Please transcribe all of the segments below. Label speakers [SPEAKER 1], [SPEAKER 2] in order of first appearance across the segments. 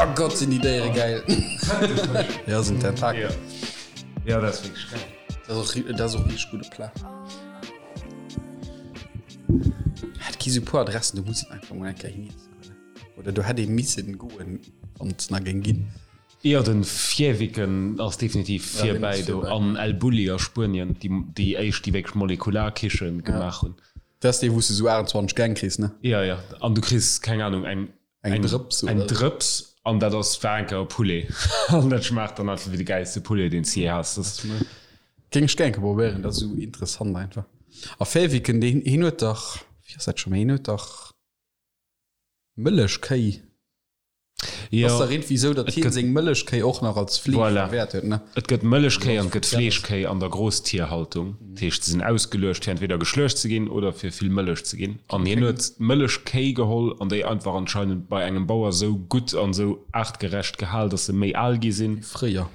[SPEAKER 1] Oh Gott, sinn déi Déiere geil. Ja, sinn Tentakel.
[SPEAKER 2] Ja, dat ass wierklech geil.
[SPEAKER 1] Dat ass och, dat ass och richteg gudde Plat. Et gi sou puer Adressen, do muss een einfach mol eng Kéier hin iessen goen. Oder do hätt ee missen goen, wann et se nach géing ginn.
[SPEAKER 2] Jo, den Fäviken ass definitiv virbäi do an El Bulli a Spuenien, déi déi éischt déi wierklech Molekularkichen gemaach hunn.
[SPEAKER 1] Dat ass dee wou s de sou 28 Gäng kriss, ne?
[SPEAKER 2] Jo, jo, an du kriss, keng Ahnung, eng
[SPEAKER 1] Eng Drëps
[SPEAKER 2] oder? Eng Drëps an dat ass war eng Kéier e Poulet an dat schmaacht dann einfach wéi de gäilste Poulet deen s de jee has.
[SPEAKER 1] Dat géing ech gär eng Kéier probéieren, dat ass esou interessant einfach. A Fäviken, deen hien huet dach, wéi ass dat scho méi, hien huet dach Mëllechkéi.
[SPEAKER 2] Jo,
[SPEAKER 1] Ass dach iergendwéi esou, datt
[SPEAKER 2] et
[SPEAKER 1] hien
[SPEAKER 2] gëtt,
[SPEAKER 1] seng Mëllechkéi och nach als Fleesch
[SPEAKER 2] voilà,
[SPEAKER 1] verwäert huet, ne?
[SPEAKER 2] et gëtt Mëllechkéi an et gëtt Fleeschkéi an der Grosstierhaltung. Dat heescht, se sinn ausgeluecht fir entweder geschluecht ze ginn oder fir vill Mëllech ze ginn. An hien huet Mëllechkéi geholl an déi einfach anscheinend bei engem Bauer sou gutt an sou aartgerecht gehal, datt se méi al gi sinn.
[SPEAKER 1] Wéi fréier.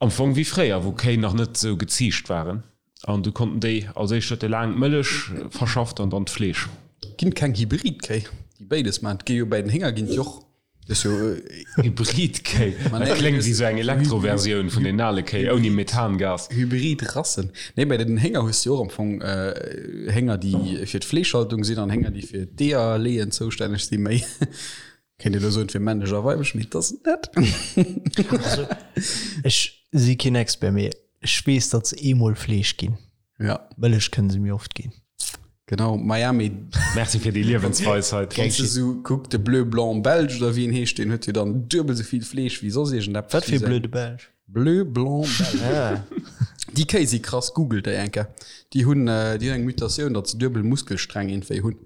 [SPEAKER 2] Am Fong wéi fréier, wou Kéi nach net sou geziicht waren. An du konnten déi, als éischt huet e laang d'Mëllech verschafft an dann d'Fleesch.
[SPEAKER 1] Ginn et keng Hybridkéi, déi béides maachen? Et gi jo bäi den Hénger ginn et jo och, dat ass jo.
[SPEAKER 2] Hybridkéi, dat kléngt wéi sou eng Elektroversioun vun den ale Kéi ouni Methangas.
[SPEAKER 1] Hybridrassen. Nee, bäi den Hénger hues de jo och am Fong Hénger, déi fir d'Fleeschhaltung sinn an Hénger, déi fir d'Eeër leeën zoustänneg sinn, méi. Kéint een elo soen, et wier männlech a weiblech, mee et ass et net.
[SPEAKER 3] Also, ech si keen Expert, mee ech weess, datt se eemol Fleesch ginn.
[SPEAKER 1] Ja.
[SPEAKER 3] Mëllech kënne se mir oft ginn.
[SPEAKER 1] Genau, Miami.
[SPEAKER 2] Merci fir déi Liewensweisheit.
[SPEAKER 1] Wann s de sou kuck, de Bleu Blanc Belge oder wéi en heescht, deen huet jo dann duebel sou vill Fleesch wéi soss iergendeppes.
[SPEAKER 3] Wat fir Bleu de Belge?
[SPEAKER 1] Bleu Blanc Belge.
[SPEAKER 3] Ah.
[SPEAKER 1] Déi Kéi si krass, googelt déi eng Kéier. Déi hunn, déi hunn eng Mutatioun, datt se duebel Muskelsträng iergendwéi hunn.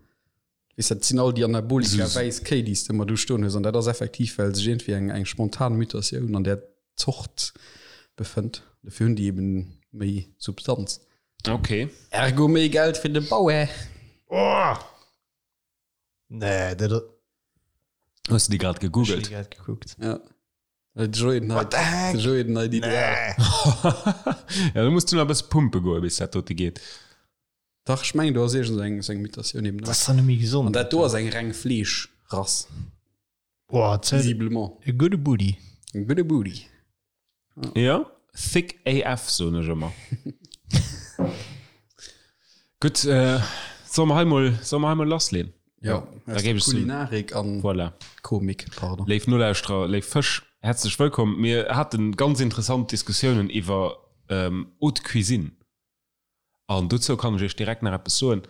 [SPEAKER 1] Weess, dat sinn all déi Anabolika wäiss Kéi, déi s de ëmmer do stoen hues. An dat ass effektiv, well sech iergendwéi eng, eng spontan Mutatioun an där Zort befënnt. Dofir hunn déi eben méi Substanz.
[SPEAKER 2] Ok.
[SPEAKER 1] Ergo méi Geld fir de Bauer.
[SPEAKER 2] Oh!
[SPEAKER 3] Nee, dat.
[SPEAKER 2] Hues de déi grad
[SPEAKER 3] Ech hunn
[SPEAKER 2] gegoogelt?
[SPEAKER 3] déi grad gekuckt.
[SPEAKER 1] Ja. De Joé den
[SPEAKER 3] What the heck?
[SPEAKER 1] De Joé den nei Ideal.
[SPEAKER 2] Ja, do muss du nach e bësse pumpe goe bis dat dote geet.
[SPEAKER 1] Dach, ech mengen do ass iergend eng sou eng Mutatioun eben
[SPEAKER 3] Dat ass dann net méi gesond.
[SPEAKER 1] An dat do ass eng reng Fleeschrass.
[SPEAKER 3] Boah, zäit.
[SPEAKER 1] Visiblement.
[SPEAKER 3] E gudde Booty.
[SPEAKER 1] E gudde Booty.
[SPEAKER 2] Jo, thick AF soen ech ëmmer. Gutt, solle mer hei mol, solle mer hei mol lassleen?
[SPEAKER 1] Jo,
[SPEAKER 2] da géif ech soen.
[SPEAKER 1] Kulinarik an
[SPEAKER 2] Voilà.
[SPEAKER 1] Komik, pardon.
[SPEAKER 2] Léif Nolauschterer, léif Fësch, häerzlech wëllkomm. Mir hate ganz interessant Diskussiounen iwwer Haute Cuisine. An dozou kann ech iech direkt nach eppes soen,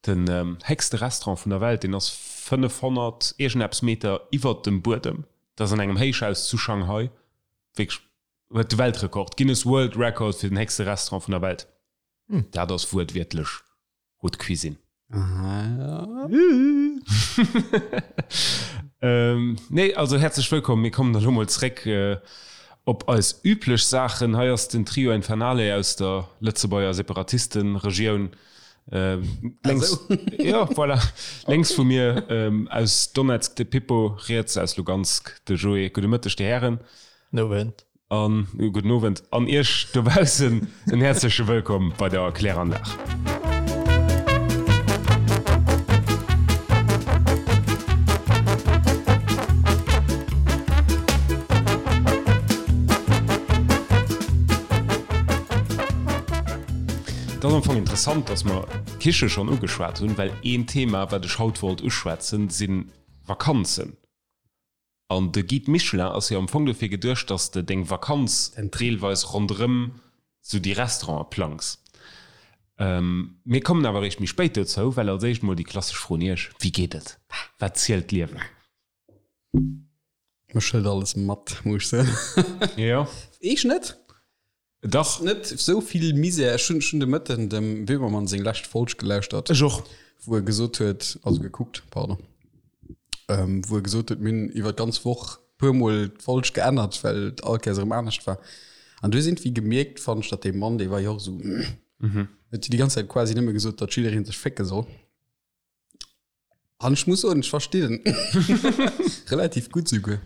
[SPEAKER 2] Den héchste Restaurant vun der Welt, deen ass 500 iergendeppes Meter iwwert dem Buedem. Dat ass an engem Héichhaus zu Shanghai. Wierklech, huet de Weltrekord, Guinness World Record fir den héchste Restaurant vun der Welt. Dat ass wuertwiertlech Haute Cuisine. Nee, also häerzlech wëllkomm. Mir kommen elo mol zréck op eis üblech Saachen. Hei ass den Trio Infernale aus der Lëtzebuerger Separatistenregioun. Lénks, jo, voilà, lénks vu mir aus Donezk de Pippo, riets aus Lugansk de Joé. Gudde Mëtteg, Dir Hären.
[SPEAKER 3] Nowend.
[SPEAKER 2] An gudden Owend an Iech dobaussen en häerzleche Wëllkomm bei der Kläranlag. Et ass am Fong interessant, dass mer d'Kiche schonn ugeschwat hunn, well een Thema, wat ech haut wollt uschwätzen, si Vakanzen. An de Guide Michelin ass jo am Fong dofir geduecht, dass de deng Vakanz deelweis ronderëm sou déi Restaurante plangs. Mir kommen awer eréischt méi spéit dozou, well als éischt mol déi klassesch Fro un iech, Wéi geet et? Wat zielt d'Liewen?
[SPEAKER 1] Mech hëlt alles mat, muss ech soen.
[SPEAKER 2] Jo.
[SPEAKER 1] Eech net?
[SPEAKER 2] Dach.
[SPEAKER 1] Net esou vill Misär. Ech hunn, ech hunn de Mëtten dem Böhmermann seng lescht Folg gelauschtert.
[SPEAKER 2] Ech och.
[SPEAKER 1] Wou e gesot huet, also gekuckt, pardon, ähm, wou e gesot huet, mir hunn iwwer d'ganz Woch puer Mol d'Folg geännert, well et all Kéiers erëm anescht war. An du hues iergendwéi gemierkt, fannen ech, datt dee Mann, dee war jo och esou, huet déi ganz Zäit quasi nëmme gesot, datt jidderee sech fécke soll. An ech muss soen, ech verstinn en relativ gutt souguer.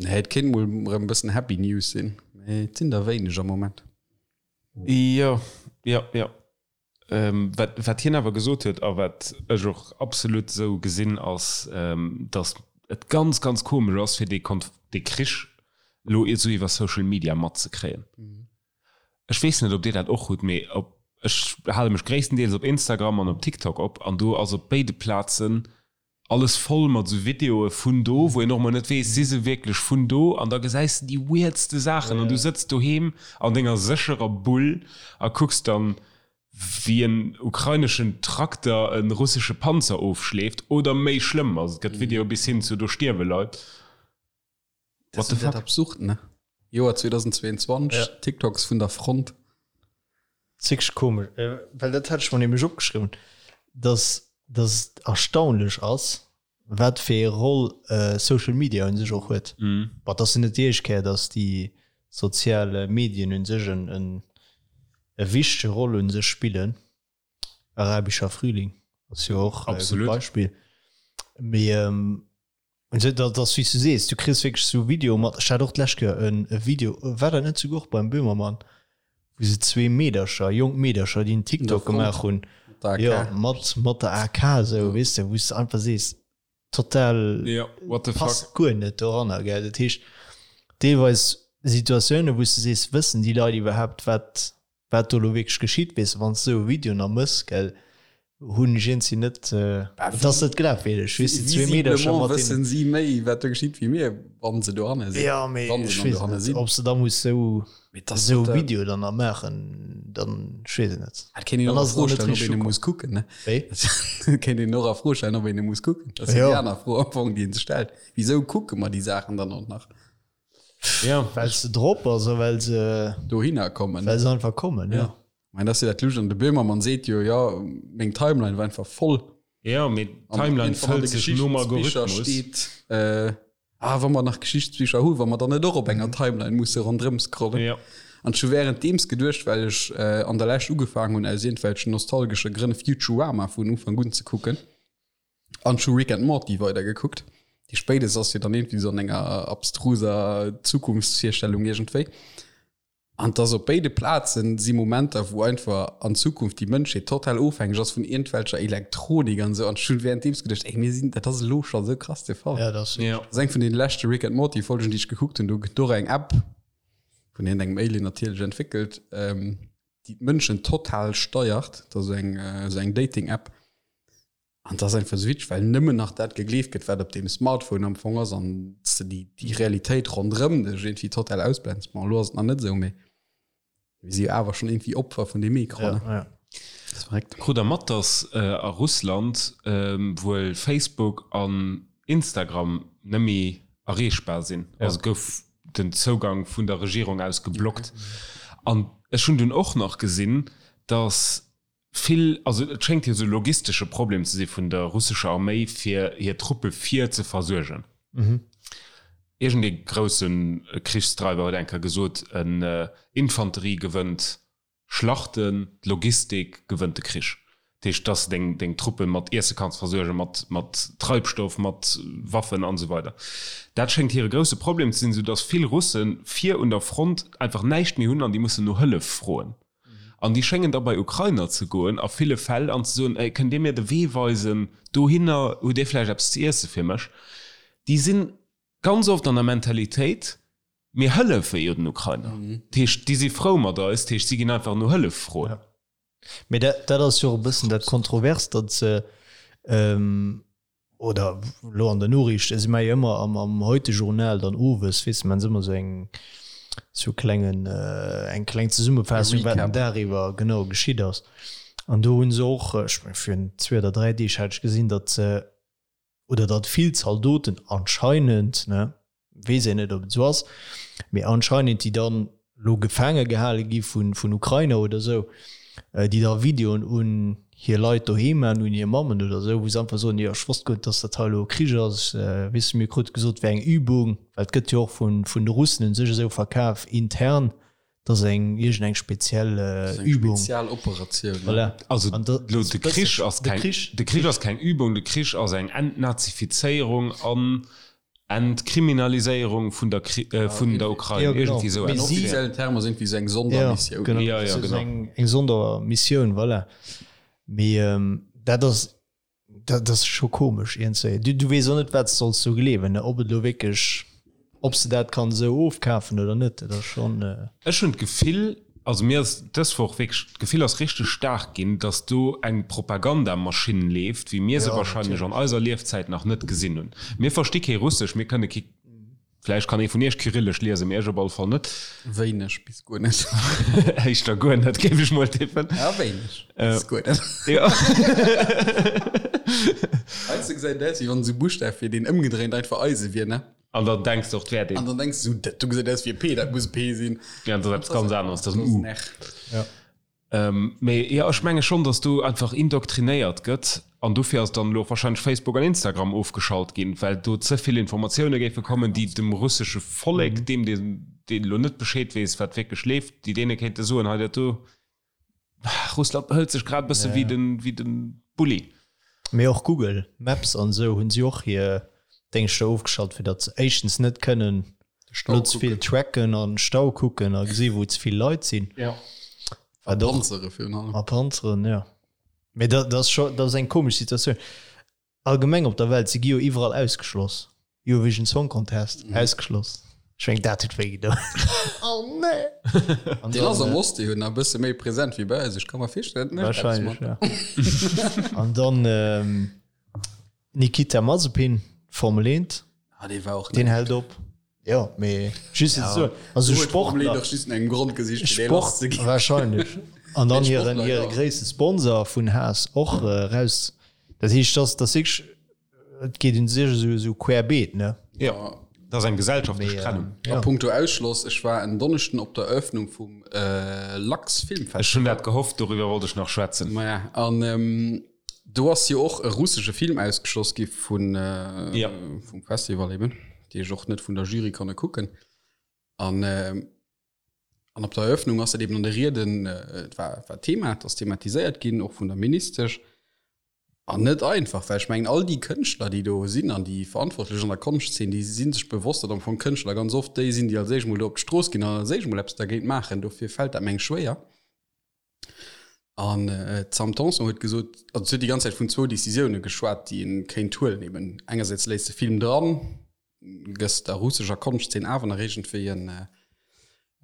[SPEAKER 1] Nee, et kéint mol erëm e bëssen Happy News sinn, mee et sinn der wéineg am Moment.
[SPEAKER 2] Jo, jo, jo. Wat, wat hien awer gesot huet a wat ech och absolut esou gesinn, ass, datt. et ganz, ganz komesch ass, fir dee Konf dee Krich elo esou iwwer Social Media matzekréien. Ech weess net, ob Dir dat och hutt, mee op, ech hale mech gréisstendeels op Instagram an op TikTok op an do ass op béide Plazen alles voll mat esou Videoe vun do, wou een och emol net weess, si se wierklech vun do? An da gesäis de déi weirdste Saachen an du sëtz doheem an denger sécherer Bull a kucks dann, wéi en ukraineschen Trakter e russesche Panzer ofschleeft oder méi schlëmm. Also et gëtt Videoe bis hin zu do stierwe Leit.
[SPEAKER 1] What the fuck? Absurd, ne? Joer 2022, ja. TikToks vun der Front.
[SPEAKER 3] Zig komisch, äh, well dat hat ech mer nämlech opgeschriwwen, dass dass et erstaunlech ass, wat fir ee Roll äh, Social Media un sech och huet. Mm. Bon, dat ass jo net déi éischt Kéier, dass déi sozial Medien un sech en, en, e wichtege Roll un sech spillen. Arabischer Frühling ass jo och e gutt Beispill. Mee ähm, dat ass wéi s du sees, du kriss wierklech sou Videoe mat. Ech hat och d'lescht Kéier en e Video, war dat net souguer och beim Böhmermann, wou se zwee Meedercher, jonk Meedercher, déi en TikTok gemaach hunn, jo, mat mat der AK esou, weess de, wou s de einfach sees, total passt guer net doranner, gell. Dat heescht, deelweis Situatiounen, wou s de sees, wëssen déi Leit iwwerhaapt, wat wat do lo wierklech geschitt, weess de, wann s de esou e Video nach mëss, gell, hunn ech iergendwéi net, et ass net glafwierdeg, weess de, zwee Meedercher
[SPEAKER 1] mat deenen. Wëssen si méi, wat do geschitt, wéi mir, wann se dohanne
[SPEAKER 3] sinn? Jo, mee ech weess et net, ob s de da muss esou, esou e Video dann nach maachen, dann, ech weess et net.
[SPEAKER 1] Et kéint een och a Fro stellen, ob een e muss kucken, ne?
[SPEAKER 3] Wéi?
[SPEAKER 1] Et kéint een och a Fro stellen, ob een e muss kucken. Dat ass jo déi aner Fro am Fong, déi een sech stellt. Wisou kucke mer déi Saachen dann och nach?
[SPEAKER 3] Ja. Well se drop ass a well se
[SPEAKER 1] dohinner kommen.
[SPEAKER 3] Well se einfach kommen, ja.
[SPEAKER 1] ja. Mein, das dat Lusch an de Böhmermann seet jo ja meng Timeline war einfach voll.
[SPEAKER 2] Ja mee Timeline fëllt sech nom Algorithmus.
[SPEAKER 1] Steet, äh, ah, wa mer nach Geschichtsbicher hu, wa mer dann net och op enger mhm. Timeline musse rondrëm scrollen.
[SPEAKER 2] Ja.
[SPEAKER 1] An scho währenddeems geduecht, well ech äh, an der Läscht ugefaangen hunn aus irgendwelchen nostalgesche Grënn Futurama vun Ufank un ze kucken. An ech hu Rick and Morty weidergekuckt. Déi spéidest ass jo dann irgendwie so an enger abstruser Zukunftsvirstellung iergendwéi. An dass op béide Plazen si Momenter, wou einfach an Zukunft déi Mënschheet total ofhängeg ass vun iergendwelcher Elektronik an esou. An ech hunn währenddeems geduecht, ey, mir sinn, dat ass elo scho sou krass de Fall.
[SPEAKER 3] Ja, dat ass
[SPEAKER 1] Ja. Dat ass eng vun deene leschte Rick and Morty Folgen, déi ech gekuckt hunn. Do gëtt och eng App vun iergendengem Alien natierlech entwéckelt, déi d'Mënschen total steiert. Dat ass eng, esou eng Dating-App. An dat ass einfach esou witzeg, well nëmmen nach dat gegleeft gëtt, wat op deem Smartphone am Fong ass an s de déi, déi Realitéit ronderëm dech iergendwéi total ausblends. Bon, elo ass et nach net esou, mee mir si jo awer schonn iergendwéi Opfer vun deem Ecran,
[SPEAKER 3] ne? Ja, ja.
[SPEAKER 1] Dat ass verréckt.
[SPEAKER 2] Krut der mat, dass a Russland wuel Facebook an Instagram nëmmi erreechbar sinn? Also gouf den Zougang vun der Regierung aus geblockt. An ech hunn dunn och nach gesinn, dass Vill, also et schéngt jo esou e logistesche Problem ze si vun der russescher Arméi fir hir Truppe vir ze versuergen. Iergend ee grousse Krichsdreiwer huet eng Kéier gesot, en Infanterie gewënnt Schlachten, d'Logistik gewënnt de Krich. Dat heescht, dass de deng deng Truppe mat Iesse kanns versuergen, mat mat Treibstoff, mat Waffen an esou weider. Dat schéngt hire grousse Problem ze sinn, esou dass vill Russe vir un der Front einfach näischt méi hunn an déi mussen no Hëllef froen. An déi schéngen da bei Ukrainer ze goen a ville Fäll an ze soen, Ey, kënnt Dir mir de Wee weisen dohinner? Hutt Dir vläicht eppes ze iesse fir mech? Déi si ganz oft an der Mentalitéit, Mir hëllefe jo den Ukrainer. Dat heescht, déi si frou mat eis, dat heescht, si ginn einfach no Hëllef froen.
[SPEAKER 3] Mee dat ass jo och e bëssen dat Kontroverst, datt se, Oder elo an der Noriicht, si maache jo ëmmer am am Heute-Journal dann owes, weess de, maachen se ëmmer esou eng esou klengen eng kleng Zesummefaassung, wat den Dag iwwer genau geschitt ass. An do hu se och, ech meng virun zwee oder dräi Deeg hat ech gesinn, datt se oder datt vill Zaldoten anscheinend, ne, weess een net ob et esou ass, mee anscheinend déi dann elo gefaange gehale gi vun vun Ukrainer oder esou, déi da Videoen un hir Leit doheem maachen, un hir Mammen oder esou, wou se einfach soen, jo ech wosst guer net, dass dat hei elo e Krich ass, weess de, mir krute gesot et wär eng Übung, well et gëtt jo och vun vun de Russen un sech esou verkaf intern, dass eng iergend eng speziell Übung.
[SPEAKER 1] Spezialoperatioun.
[SPEAKER 3] Voilà.
[SPEAKER 2] Also elo de Krich ass keng, de Krich ass keng Übung, de Krich ass eng Entnazifizéierung an Entkriminaliséierung vun der vun der Ukrain.
[SPEAKER 3] Ja, genau.
[SPEAKER 2] Iergendwéi esou
[SPEAKER 1] Mee si. Offiziellen Term ass iergendwéi esou eng Sondermissioun.
[SPEAKER 3] Ja, genau.
[SPEAKER 2] Ja, ja, genau.
[SPEAKER 3] Eng Sondermissioun, voilà. Mee dat ass. Dat ass scho komesch iergendzwéi. Du, du weess och net, wat s de solls do gleewen, ne? Ob et elo wierklech, ob s de dat kann esou ofkafen oder net. Dat ass schonn.
[SPEAKER 2] Ech hunn d'Gefill, also mir ass dës Woch wierklech, d'Gefill ass richteg staark ginn, datt do eng Propagandamaschinn leeft, wéi mir se wahrscheinlech an eiser Liefzäit nach net gesinn hunn. Mir versti kee Russesch, mir kënne kee. Vläicht kann ee vun iech Kyrillesch liesen, mee ech op alle Fall net.
[SPEAKER 1] Wéineg bis guer net.
[SPEAKER 2] Éischter guer net, géif ech mol tippen.
[SPEAKER 1] Ja, wéineg bis guer net.
[SPEAKER 2] Jo.
[SPEAKER 1] Heiansdo gesäit et aus, wéi wann esou Buschtaf wier, deen ëmgedréint einfach Eise wier, ne?
[SPEAKER 2] An dann denks de och, 't wär deen.
[SPEAKER 1] An dann denks de esou, dat do gesäit aus wéi e P, dat muss e P sinn.
[SPEAKER 2] Ja, an dat ass eppes ganz aneres, dat ass en U.
[SPEAKER 1] Dat ass en R.
[SPEAKER 3] Ja.
[SPEAKER 2] Mee jo, ech menge schonn, datt do einfach indoktrinéiert gëtt an dofir ass dann elo och wahrscheinlech Facebook an Instagram ofgeschalt ginn, well do ze vill Informatioune géife kommen, déi dem russesche Vollek, deem deen elo net Bescheed weess, wat wierklech leeft, déi deene kéinte soen, hei dat do, Russland behëlt sech grad e bësse wéi den, wéi de Bulli.
[SPEAKER 3] Mee och Google Maps an esou hunn si och hir Déngschter ofgeschalt, fir datt se éischtens net kënnen
[SPEAKER 1] Stau
[SPEAKER 3] Net ze vill tracken an Stau kucken a gesi wou ze vill Leit sinn.
[SPEAKER 2] Ja.
[SPEAKER 1] A Panzere virun allem.
[SPEAKER 3] A Panzeren, ja. Mee dat ass scho, dat ass eng komesch Situatioun. Allgemeng op der Welt, se gi jo iwwerall ausgeschloss. Eurovision Song Contest, ausgeschloss. Ech mengen, dat huet wéi gedoen. Oh nee!
[SPEAKER 1] An Deen ass am Oste jo nach e bësse méi present wéi bei eis. Ech ka mer virstellen, dat mécht eppes
[SPEAKER 3] Wahrscheinlech, ja. An dann Nikita Mazepin, Formel 1.
[SPEAKER 1] Ah, dee war och
[SPEAKER 3] Den hält op. Jo, mee just fir ze soen, also Sportler.
[SPEAKER 1] Doch just engem Grond gesicht, fir dee lass ze ginn.
[SPEAKER 3] Wahrscheinlech. An dann hiren,
[SPEAKER 1] Sportler,
[SPEAKER 3] hire gréisste Sponsor vun Haas och raus. Dat heescht, dass, dass wierklech, et geet un sech esou, esou querbeet, ne?
[SPEAKER 2] Jo, dat ass eng gesellschaftlech Trennung.
[SPEAKER 1] A punkto Ausschloss, ech war en Donneschden op der Eröffnung vum Lux Filmfestival.
[SPEAKER 2] Ech hunn dat gehofft, doriwwer wollt ech nach schwätzen.
[SPEAKER 1] Maja, an Do ass jo och e russesche Film ausgeschloss gi vun
[SPEAKER 2] ja.
[SPEAKER 1] vum Festival eben, déi ech och net vun der Jury konne kucken. An an op der Eröffnung ass dat eben an de Rieden et war war Thema, et ass thematiséiert ginn, och vun der Ministesch. An net einfach, well ech mengen all déi Kënschtler, déi do sinn an déi Verantwortlech an der Konschtzeen, déi si sech bewosst, datt am Fong Kënschtler ganz oft déi sinn, déi als éischt mol do op d'Strooss ginn an als éischt mol eppes dergéint maachen. Dofir fält dat meng schwéier. An d'Sam Tanson huet gesot, also si huet déi ganz Zäit vun zwou Decisioune geschwat, déi ee kéint huelen eben. Engersäits léiss de Film dran, gëss der russescher Konschtzeen awer nach iergendwéi en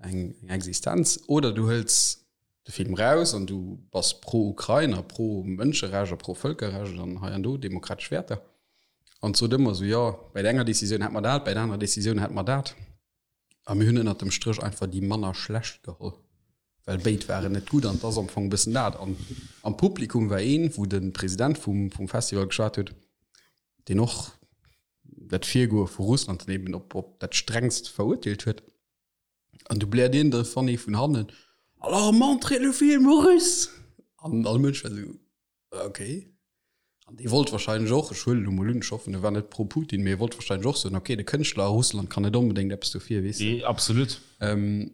[SPEAKER 1] eng Existenz, oder du hëls de Film raus an du bass pro-Ukrain a pro-Mënscherecht a pro-Vëlkerrecht an hei an do demokratesch Wäerter. An sot ëmmer esou, jo, bäi der enger Decisioun hätt mer dat, bäi der anerer Decisioun hätt mer dat. A mir hunn ënnert dem Stréch einfach déi manner schlecht geholl, well béid waren net gutt. An et ass am Fong e bëssen dat. An am Publikum war een, wou de President vum, vum Festival geschwat huet, deen och dat Virgoe vu Russland dann eben op, op dat Strengst verurteelt huet. An du bläert een de Fanny vun hannen, Alors montrez le film aux Russes! An all Mënsch war esou, Ok. An dee wollt wahrscheinlech och, ech huelen elo mol un, ech hoffen e war net pro Putin, mee e wollt wahrscheinlech och soen, ok, de Kënschtler a Russland kann net onbedéngt eppes dofir, weess de.
[SPEAKER 2] Absolut.
[SPEAKER 1] An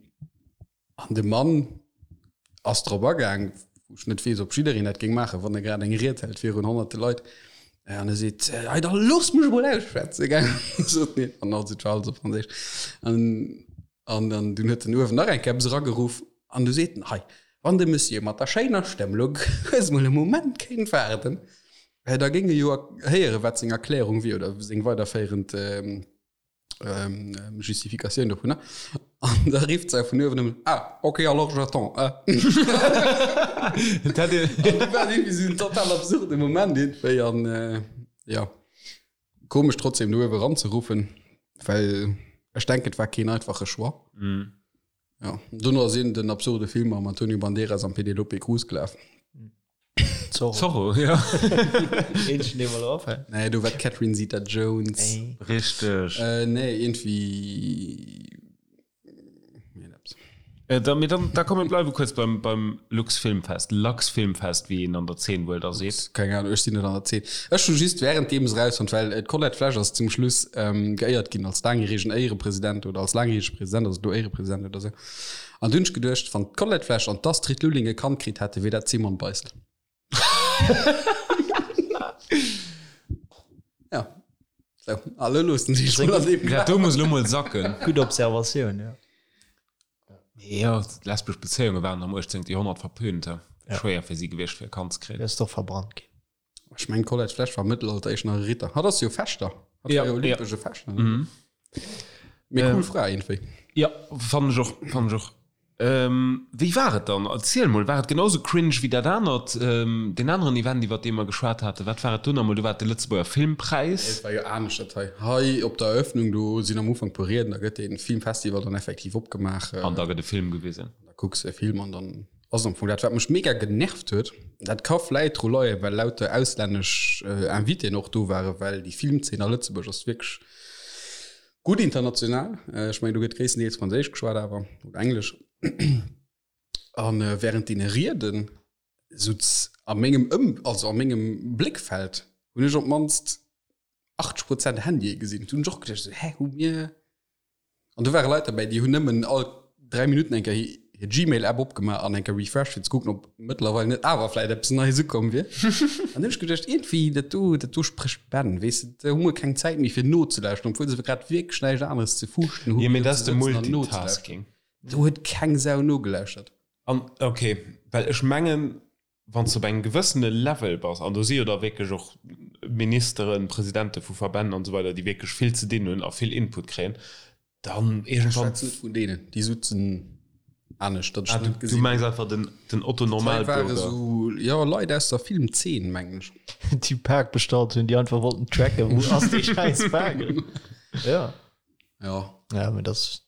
[SPEAKER 1] de Mann ass drop agaang, wou ech net weess, ob jiddereen dat géing maachen, wann e grad eng Ried hält virun honnerte Leit, an e seet, Hei, da loosst mech emol ausschwätzen, gell, sot en. An also et war alles op Franséisch. An An dann dunn huet en uewen nach eng Kéier eppes erageruff an du seet en, Hei, wann de Monsieur mat der schéiner Stëmm elo kuerz mol e Moment kéint waarden, da géing e jo héieren, wat seng Erklärung wier oder seng weiderféierend Justificatioun dovunner. An da rifft se vun uewen nëmmen, Ah, ok, alors j'attends, eh.
[SPEAKER 2] Dat
[SPEAKER 1] An du war irgendwie esou en total absurde Moment iergendwéi an, jo. Komesch trotzdem do uewe ranzeruffen, well ech denken et war keen einfache Choix.
[SPEAKER 2] Mm.
[SPEAKER 1] Ja. Dono ass een den absurde Film mam Antonio Banderas an Penelope Cruz gelaf.
[SPEAKER 3] Zorro.
[SPEAKER 2] Zorro, ja.
[SPEAKER 3] Eenzegen, dee mer elo afält.
[SPEAKER 1] Nee, do war d'Catherine Zeta-Jones.
[SPEAKER 2] Richteg.
[SPEAKER 1] Äh, nee, irgendwie.
[SPEAKER 2] Äh, da, mir dann, da komm, mir bleiwe kuerz beim, beim Lux Filmfest, Lux Filmfest, wéi een an der Zeen wuel da seet.
[SPEAKER 1] Keng Ahnung, ech sinn net an der Zeen. Ech hu just währenddeem se rausfonnt, well äh, d'Colette Flesch ass zum Schluss ähm, geéiert ginn als laangjäregen Éierepresident oder als laangjärege President, also do Éierepresident oder sou. An du hunn ech geduecht, wann d'Colette Flesch an d'Astrid Lulling e Kand kritt hätte, wier dat d'Simone Beissel. Ja. So, alle loossen sich mal an dem
[SPEAKER 2] Dat do muss lo mol sacken.
[SPEAKER 3] Gutt Observatioun, ja.
[SPEAKER 2] Jo, lesbesch Bezéiunge waren am 18. Joerhonnert verpönt.
[SPEAKER 3] Ja.
[SPEAKER 2] Schwéier fir si gewiescht, fir e Kand ze kréien.
[SPEAKER 3] Ass doch verbrannt ginn.
[SPEAKER 1] Ech mengen d'Colette Flesch war am Mëttelalter éischt nach e Ritter. Hatt ass jo Fechter. Hatt war jo olympesche Fechter. Mee cool Fra iergendwéi.
[SPEAKER 2] Jo, fannen ech och, fannen ech och. Wéi war et dann? Erziel mol, war et genau sou cringe wéi dat anert, deen aneren Event iwwert dee mer geschwat haten? Wat war et do nach emol? Do war et de Lëtzebuerger Filmpräis.
[SPEAKER 1] Nee, et war jo anescht dat hei. Hei op der Eröffnung, do sinn am Ufank puer Rieden, da gëtt dee Filmfestival dann effektiv opgemaach.
[SPEAKER 2] An da gëtt e Film gewisen.
[SPEAKER 1] Da kucks de e Film an dann ass et am Fong dat. Wat mech mega genervt huet, dat ka vläit dru leien, well lauter auslännesch Invitéen och do waren, well déi Filmzeen a Lëtzebuerg ass wierklech Gutt international, ech mengen do gëtt gréisstendeels Franséisch geschwat awer, oder Englesch. An während deene Rieden sutz a mengem Ëm, also a mengem Bléckfeld hunn ech op d'mannst 80 Prozent Handye gesinn. Do hunn ech och geduecht esou, hä, hu mir. An do ware Leit derbäi, déi hunn nëmmen all 3 Minutten eng Kéier hir Gmail-App opgemaach an eng Kéier refreshed, fir ze kucken, ob mëttlerweil net awer vläit eppes Neies ukomm wier. An hunn ech geduecht, iergendwéi, dat do, dat do sprécht Bänn, weess de, do hu mer keng Zäit méi fir nozelauschteren, obwuel se grad wierklech näischt aneres ze fuuschten
[SPEAKER 2] hunn, Jo, mee dat ass de Multitasking.
[SPEAKER 1] Do huet keng Sau nogelauschtert.
[SPEAKER 2] An, ok, well ech mengen, wann s de op engem gewëssene Level bass, an do si jo da wierklech och Ministeren, Presidente vu Verbänn an esou weider, déi wierklech vill ze dinn hunn a vill Input kréien, dann
[SPEAKER 1] iergendwann. Ech schwätzen net vun deenen, déi sutzen anescht,
[SPEAKER 2] datt ech net gesinn. Du mengs einfach den, den Otto Normalbürger?
[SPEAKER 1] Dat hei ware sou, jo, Leit aus der Filmzeen, mengen ech.
[SPEAKER 3] Déi Pak bestallt hunn, déi einfach wollten tracken, wou ass dee schäiss Pak? Ja.
[SPEAKER 1] Ja.
[SPEAKER 3] Ja, mee dat ass.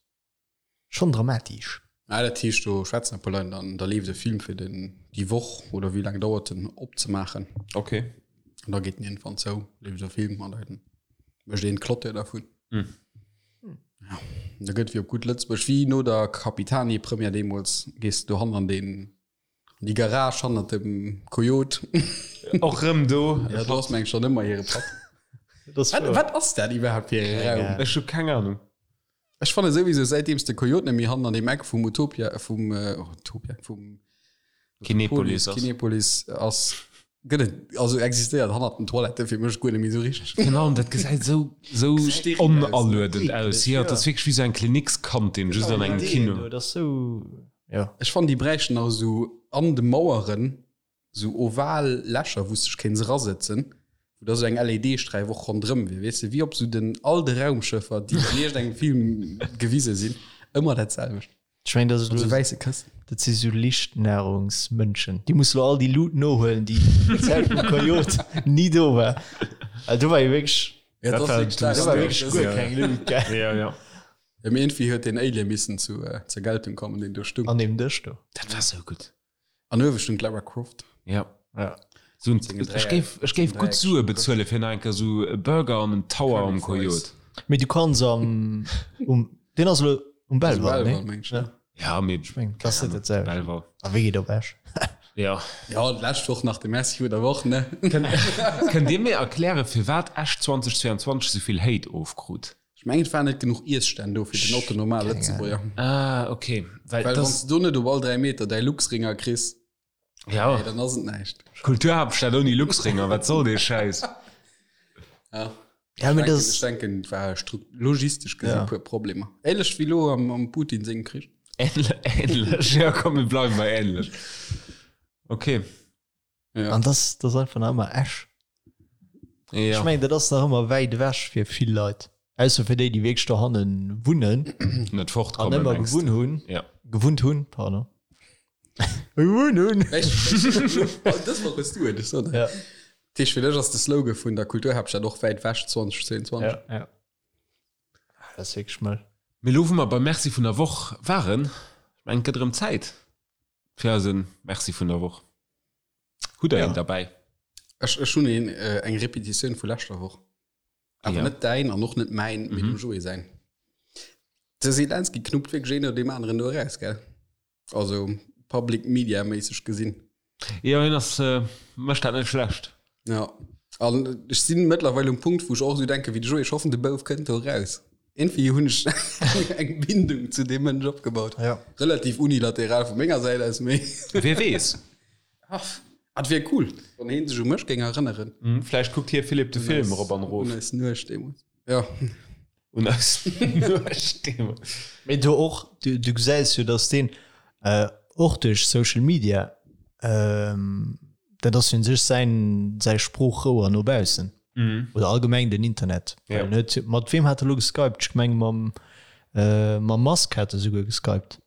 [SPEAKER 3] Schon dramatisch.
[SPEAKER 1] Ah, dat heescht do schwätzen e puer Leit an da leeft e Film fir den déi Woch oder wéi laang dauert en opzemaachen.
[SPEAKER 2] Okay.
[SPEAKER 1] An da geet en iergendwann zou, leeft e Film an da mécht een d'Clôture dervun.
[SPEAKER 2] Hm.
[SPEAKER 1] Ja, da gëtt wéi op gutt Lëtzebuerg, wéi no der Capitani-Première deemools, gees de dohannen an deen an déi Garage hannert dem Coyote.
[SPEAKER 2] Och rëm do.
[SPEAKER 1] Ja, do ass meng schon ëmmer hire Papp. Wat, wat ass dat iwwerhaapt fir e Raum?
[SPEAKER 2] Ech hu keng Ahnung.
[SPEAKER 1] Ech fanne souwisou säitdeems de Coyote net méi hannen an deem Eck vum Utopia, vum, oh, Utopia, vum
[SPEAKER 2] Kinepolis ass.
[SPEAKER 1] Kinepolis ass, gëtt et, also existéiert hannert den Toilette fir mech guer net méi esou richteg.
[SPEAKER 2] Genau, an dat gesäit esou, esou
[SPEAKER 1] Steril aus.
[SPEAKER 2] onaluedend aus. Jo, et ass wierklech wéi esou eng Klinikskantin, just an engem Kino.
[SPEAKER 3] Dat ass sou, jo.
[SPEAKER 1] Ech fannen, déi bräichten nach esou an de Maueren Sou oval Lächer, wou s dech kéints erasëtzen, wou da sou eng LED-Sträif och ronderëm wier, weess de, wéi op sou den all de Raumschëffer, déi an iergendengem Film gewise sinn, ëmmer dat selwecht.
[SPEAKER 3] Ech mengen, dat ass
[SPEAKER 1] Mat sou wäisse Këssen.
[SPEAKER 3] Dat si sou Lichtnahrungsmënschen. Déi musse lo all déi Lut nohuelen, déi déi Zäit vum Coyote ni do war. Well do war jo wierklech,
[SPEAKER 1] Ja, dat ass wierklech
[SPEAKER 3] do war wierklech guer keng Lut, gell?
[SPEAKER 2] Ja, ja.
[SPEAKER 1] Ja, mee iergendwéi huet deen Alien missen zu, zur Geltung kommen, deen do stung.
[SPEAKER 3] An deem Dësch do.
[SPEAKER 2] Dat war sou gutt.
[SPEAKER 1] An uewe stung d'Lara Croft.
[SPEAKER 2] Ja.
[SPEAKER 3] Ja.
[SPEAKER 2] So ein, ech géif, ech géif gutt Sue bezuelen fir nach eng Kéier sou e Burger an en Tower am Coyote.
[SPEAKER 3] Mee du kanns am, um, deen ass elo um Belval,
[SPEAKER 1] Belval,
[SPEAKER 3] nee?
[SPEAKER 1] meng ech,
[SPEAKER 3] Ja.
[SPEAKER 2] Ja, mee
[SPEAKER 3] Ech meng, dat ass net dat selwecht.
[SPEAKER 2] Belval.
[SPEAKER 3] A wéi geet op Esch?
[SPEAKER 2] Ja.
[SPEAKER 1] Ja, d'lescht Woch nach de Merci vun der Woch, ne?
[SPEAKER 2] Kënnt Dir mir erklären, firwat Esch 2022 sou vill Hate ofkrut?
[SPEAKER 1] Ech mengen et waren net genuch Iesstänn do fir den Otto Normal Lëtzebuerger.
[SPEAKER 2] Ah ok,
[SPEAKER 1] well wann s de do net op all 3 Meter däi Luxringer kriss,
[SPEAKER 2] ja.
[SPEAKER 1] Hey, dann ass et näischt.
[SPEAKER 2] Kulturhaaptstad ouni Luxringer, wat soll dee Schäiss?
[SPEAKER 1] Ja.
[SPEAKER 3] Ja,
[SPEAKER 1] Ech
[SPEAKER 3] mee
[SPEAKER 1] denken,
[SPEAKER 3] das
[SPEAKER 1] ech denken et war logistesch gesi
[SPEAKER 3] Ja.
[SPEAKER 1] puer Problemer. Ähnlech wéi lo am, am Putin sengem Krich.
[SPEAKER 2] Ähnlech, ja komm mir bleiwen bei ähnlech. Ok.
[SPEAKER 1] Ja.
[SPEAKER 3] An das, das ass einfach nach ëmmer Esch.
[SPEAKER 2] Ja.
[SPEAKER 3] Ech mengen, dat ass nach ëmmer wäit ewech fir vill Leit. Ausser fir déi, déi wierklech dohanne wunnen
[SPEAKER 2] Net
[SPEAKER 3] an
[SPEAKER 2] fortkommen,
[SPEAKER 3] ëmmer
[SPEAKER 2] mengst du?
[SPEAKER 3] gewunn hunn.
[SPEAKER 2] Ja.
[SPEAKER 3] Gewunnt hunn, pardon. Gewunn hunn.
[SPEAKER 1] Dës Woch hues du et, ech soen
[SPEAKER 3] Ja.
[SPEAKER 1] Dat heescht, fir dech ass de Slogan vun der Kulturhaaptstad och wäit ewech 2022.
[SPEAKER 3] Ja, ja. Ah, Dat ass wierklech mëll.
[SPEAKER 2] Mee elo, wou mer beim Merci vun der Woch waren, ech mengen, et gëtt erëm Zäit fir eise Merci vun der Woch. Hutt der
[SPEAKER 3] Ja.
[SPEAKER 2] een derbäi?
[SPEAKER 1] Ech, ech hunn een, äh, eng Repetitioun vu leschter Woch. Awer
[SPEAKER 2] Ja.
[SPEAKER 1] net däin an och net mäin, mee dem Joé säin. De Zelensky knuppt wierklech een no deem aneren do eraus, gell? Also Public Media méisseg gesinn.
[SPEAKER 2] Jo, hien ass, mécht dat net schlecht.
[SPEAKER 1] Ja. An ech sinn mëttlerweil um Punkt, wou ech och esou denke wéi de Joé, ech hoffen, de Bouf kënnt do eraus. Iergendwéi hunn ech eng Bindung zu deem Mënsch opgebaut.
[SPEAKER 3] Ja.
[SPEAKER 1] Relativ unilateral vu menger Säit aus, mee.
[SPEAKER 2] Wie weess?
[SPEAKER 1] Ach, et wier cool, wann heen sech u mech géing erënneren.
[SPEAKER 2] Vläicht kuckt hie Philippe de Film erop an erof.
[SPEAKER 1] Un eis Nuecht deemools. Ja.
[SPEAKER 2] Un eis Nuecht deemools.
[SPEAKER 3] Mee do och, du, du gesäis jo, dass deen och duerch Social Media. Dat ass jo un sech säin, säi Sproochrouer no baussen. Oder allgemeng den Internet.
[SPEAKER 2] Ja.
[SPEAKER 3] Well en huet, mat weem hat e lo geskypt? Ech meng mam, mam Musk hat e souguer geskypt.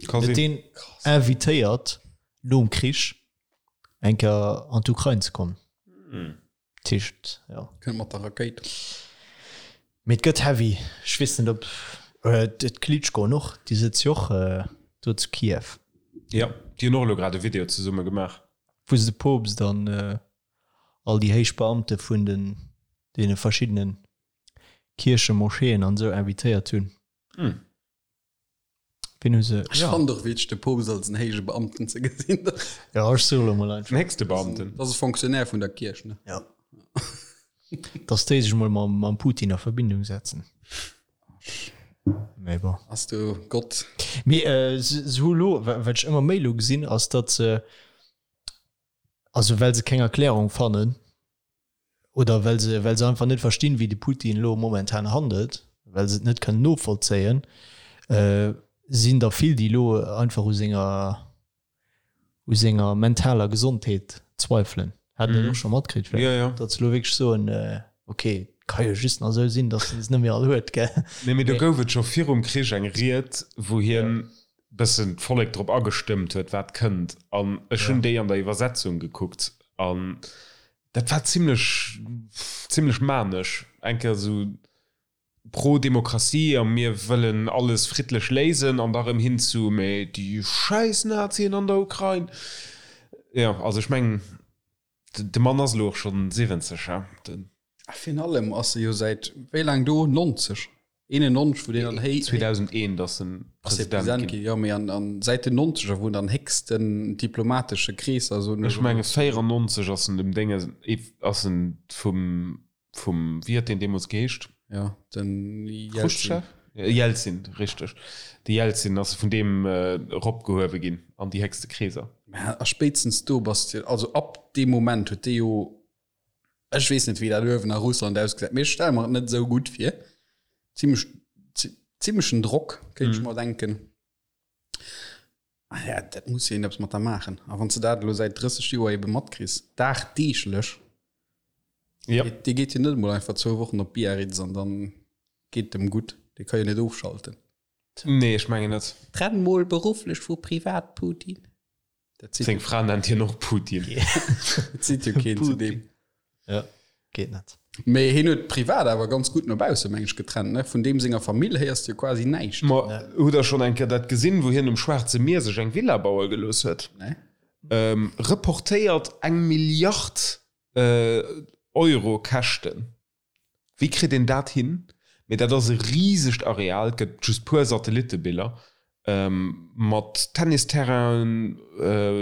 [SPEAKER 2] Ka
[SPEAKER 3] Huet
[SPEAKER 2] sinn.
[SPEAKER 3] deen invitéiert nom Krich eng Kéier an d'Ukrain ze kommen. Dat heescht, jo.
[SPEAKER 1] Kënnt mat der Rakéit.
[SPEAKER 3] Mee et gëtt heavy. Ech weess net ob d'Klitschkoen och, déi sëtze jo och do zu Kiew.
[SPEAKER 2] Jo, déi hunn och elo grad e Video zesumme gemaach.
[SPEAKER 3] Wou se de Poopst an all déi héich Beamte vun den deene verschiddene Kierchen, Moscheeën an esou invitéiert hunn. Wien hu se?
[SPEAKER 1] Ech fannen och witzeg, de Poopst als en héije Beamten ze gesinn.
[SPEAKER 3] Jo, ech soe lo mol einfach.
[SPEAKER 2] Den héchste Beamten.
[SPEAKER 1] Dat ass e Fonctionnaire vun der Kierch, ne?
[SPEAKER 3] Jo. Dass déi sech mol mam, mam Putin a Verbindung setzen. Mee bon.
[SPEAKER 1] Ass du Gott.
[SPEAKER 3] Mee äh, se, se hu lo, wat ech ëmmer méi lo gesinn, ass datt se, also well se keng Erklärung fannen, oder well se, well se einfach net verstinn, wéi de Putin elo momentan handelt, well se et net kënnen novollzéien, sinn der vill, déi elo einfach u senger, u senger mentaler Gesondheet zweifelen. Hat Der dat och scho matkritt vläicht?
[SPEAKER 2] Jo, jo.
[SPEAKER 3] Datt se elo wierklech soen, ok, et ka jo just nach esou sinn, datt en se net méi all huet, gell?
[SPEAKER 2] Nee, mee do gouf et scho virum Krich eng Ried, wou hien bëssen d'Vollek drop agestëmmt huet, wat kënnt. An ech hunn déi an der Iwwersetzung gekuckt an Dat war zimlech, zimlech manesch. Eng Kéier esou pro Demokratie a mir wëllen alles friddlech léisen an da rëm hin zu mee déi schäiss Nazien an der Ukrain. Jo, also ech mengen, de Mann ass elo och schonn 70, he? Den.
[SPEAKER 1] A virun allem ass e jo säit wéi laang do? 90? 91 wou deen an héi
[SPEAKER 2] 2001 ass en
[SPEAKER 1] President ginn. Jo mee an an säit den 90er wou en an héchsten diplomatesche Kreesser soen
[SPEAKER 2] ech menge 94 ass en dem Dénge ass en vum vum wéi huet deen deemools geheescht?
[SPEAKER 1] Jo den Jelzin.
[SPEAKER 2] Chruschtschow? Jelzin richteg de Jelzin ass vun deem eropgehuewe ginn an déi héchste Kreeser.
[SPEAKER 1] Mä a spéitstens do bass de also ab deem Moment huet dee jo Ech weess net wéi dat uewen a Russland ausgesäit, mee ech stelle mer et net esou gutt vir. Zimmlech zimmlechen Drock kéint ech mer denken. Ah ja, dat muss jo een eppes mat der maachen. A wann s de dat elo säit 30 Joer ebe matkriss, dagdeeglech,
[SPEAKER 2] Ja.
[SPEAKER 1] dee geet jo net emol einfach zwou Wochen op Biarritz an dann geet et em gutt. Dee ka jo net ofschalten.
[SPEAKER 2] Nee, ech mengen net.
[SPEAKER 1] Trenn mol berufflech vu privat, Putin. Dat
[SPEAKER 2] zitt Seng Fra nennt hien och Putin.
[SPEAKER 1] Dat zitt jo keen zu deem.
[SPEAKER 3] Ja, geet net.
[SPEAKER 1] Mee hien huet privat awer ganz gutt no bausse meng ech getrennt, ne? Vun deem senger Famill héiers de jo quasi näischt.
[SPEAKER 2] Ma hutt der schonn eng Kéier dat gesinn, wou hien um Schwaarze Mier sech eng Villa baue gelooss huet?
[SPEAKER 1] Nee.
[SPEAKER 2] Reportéiert eng Milliard Euro Käschten. Wéi kritt een dat hin? Mee dat ass e risegt Areal, et gëtt just puer Satellittebiller, mat Tennisterrainen,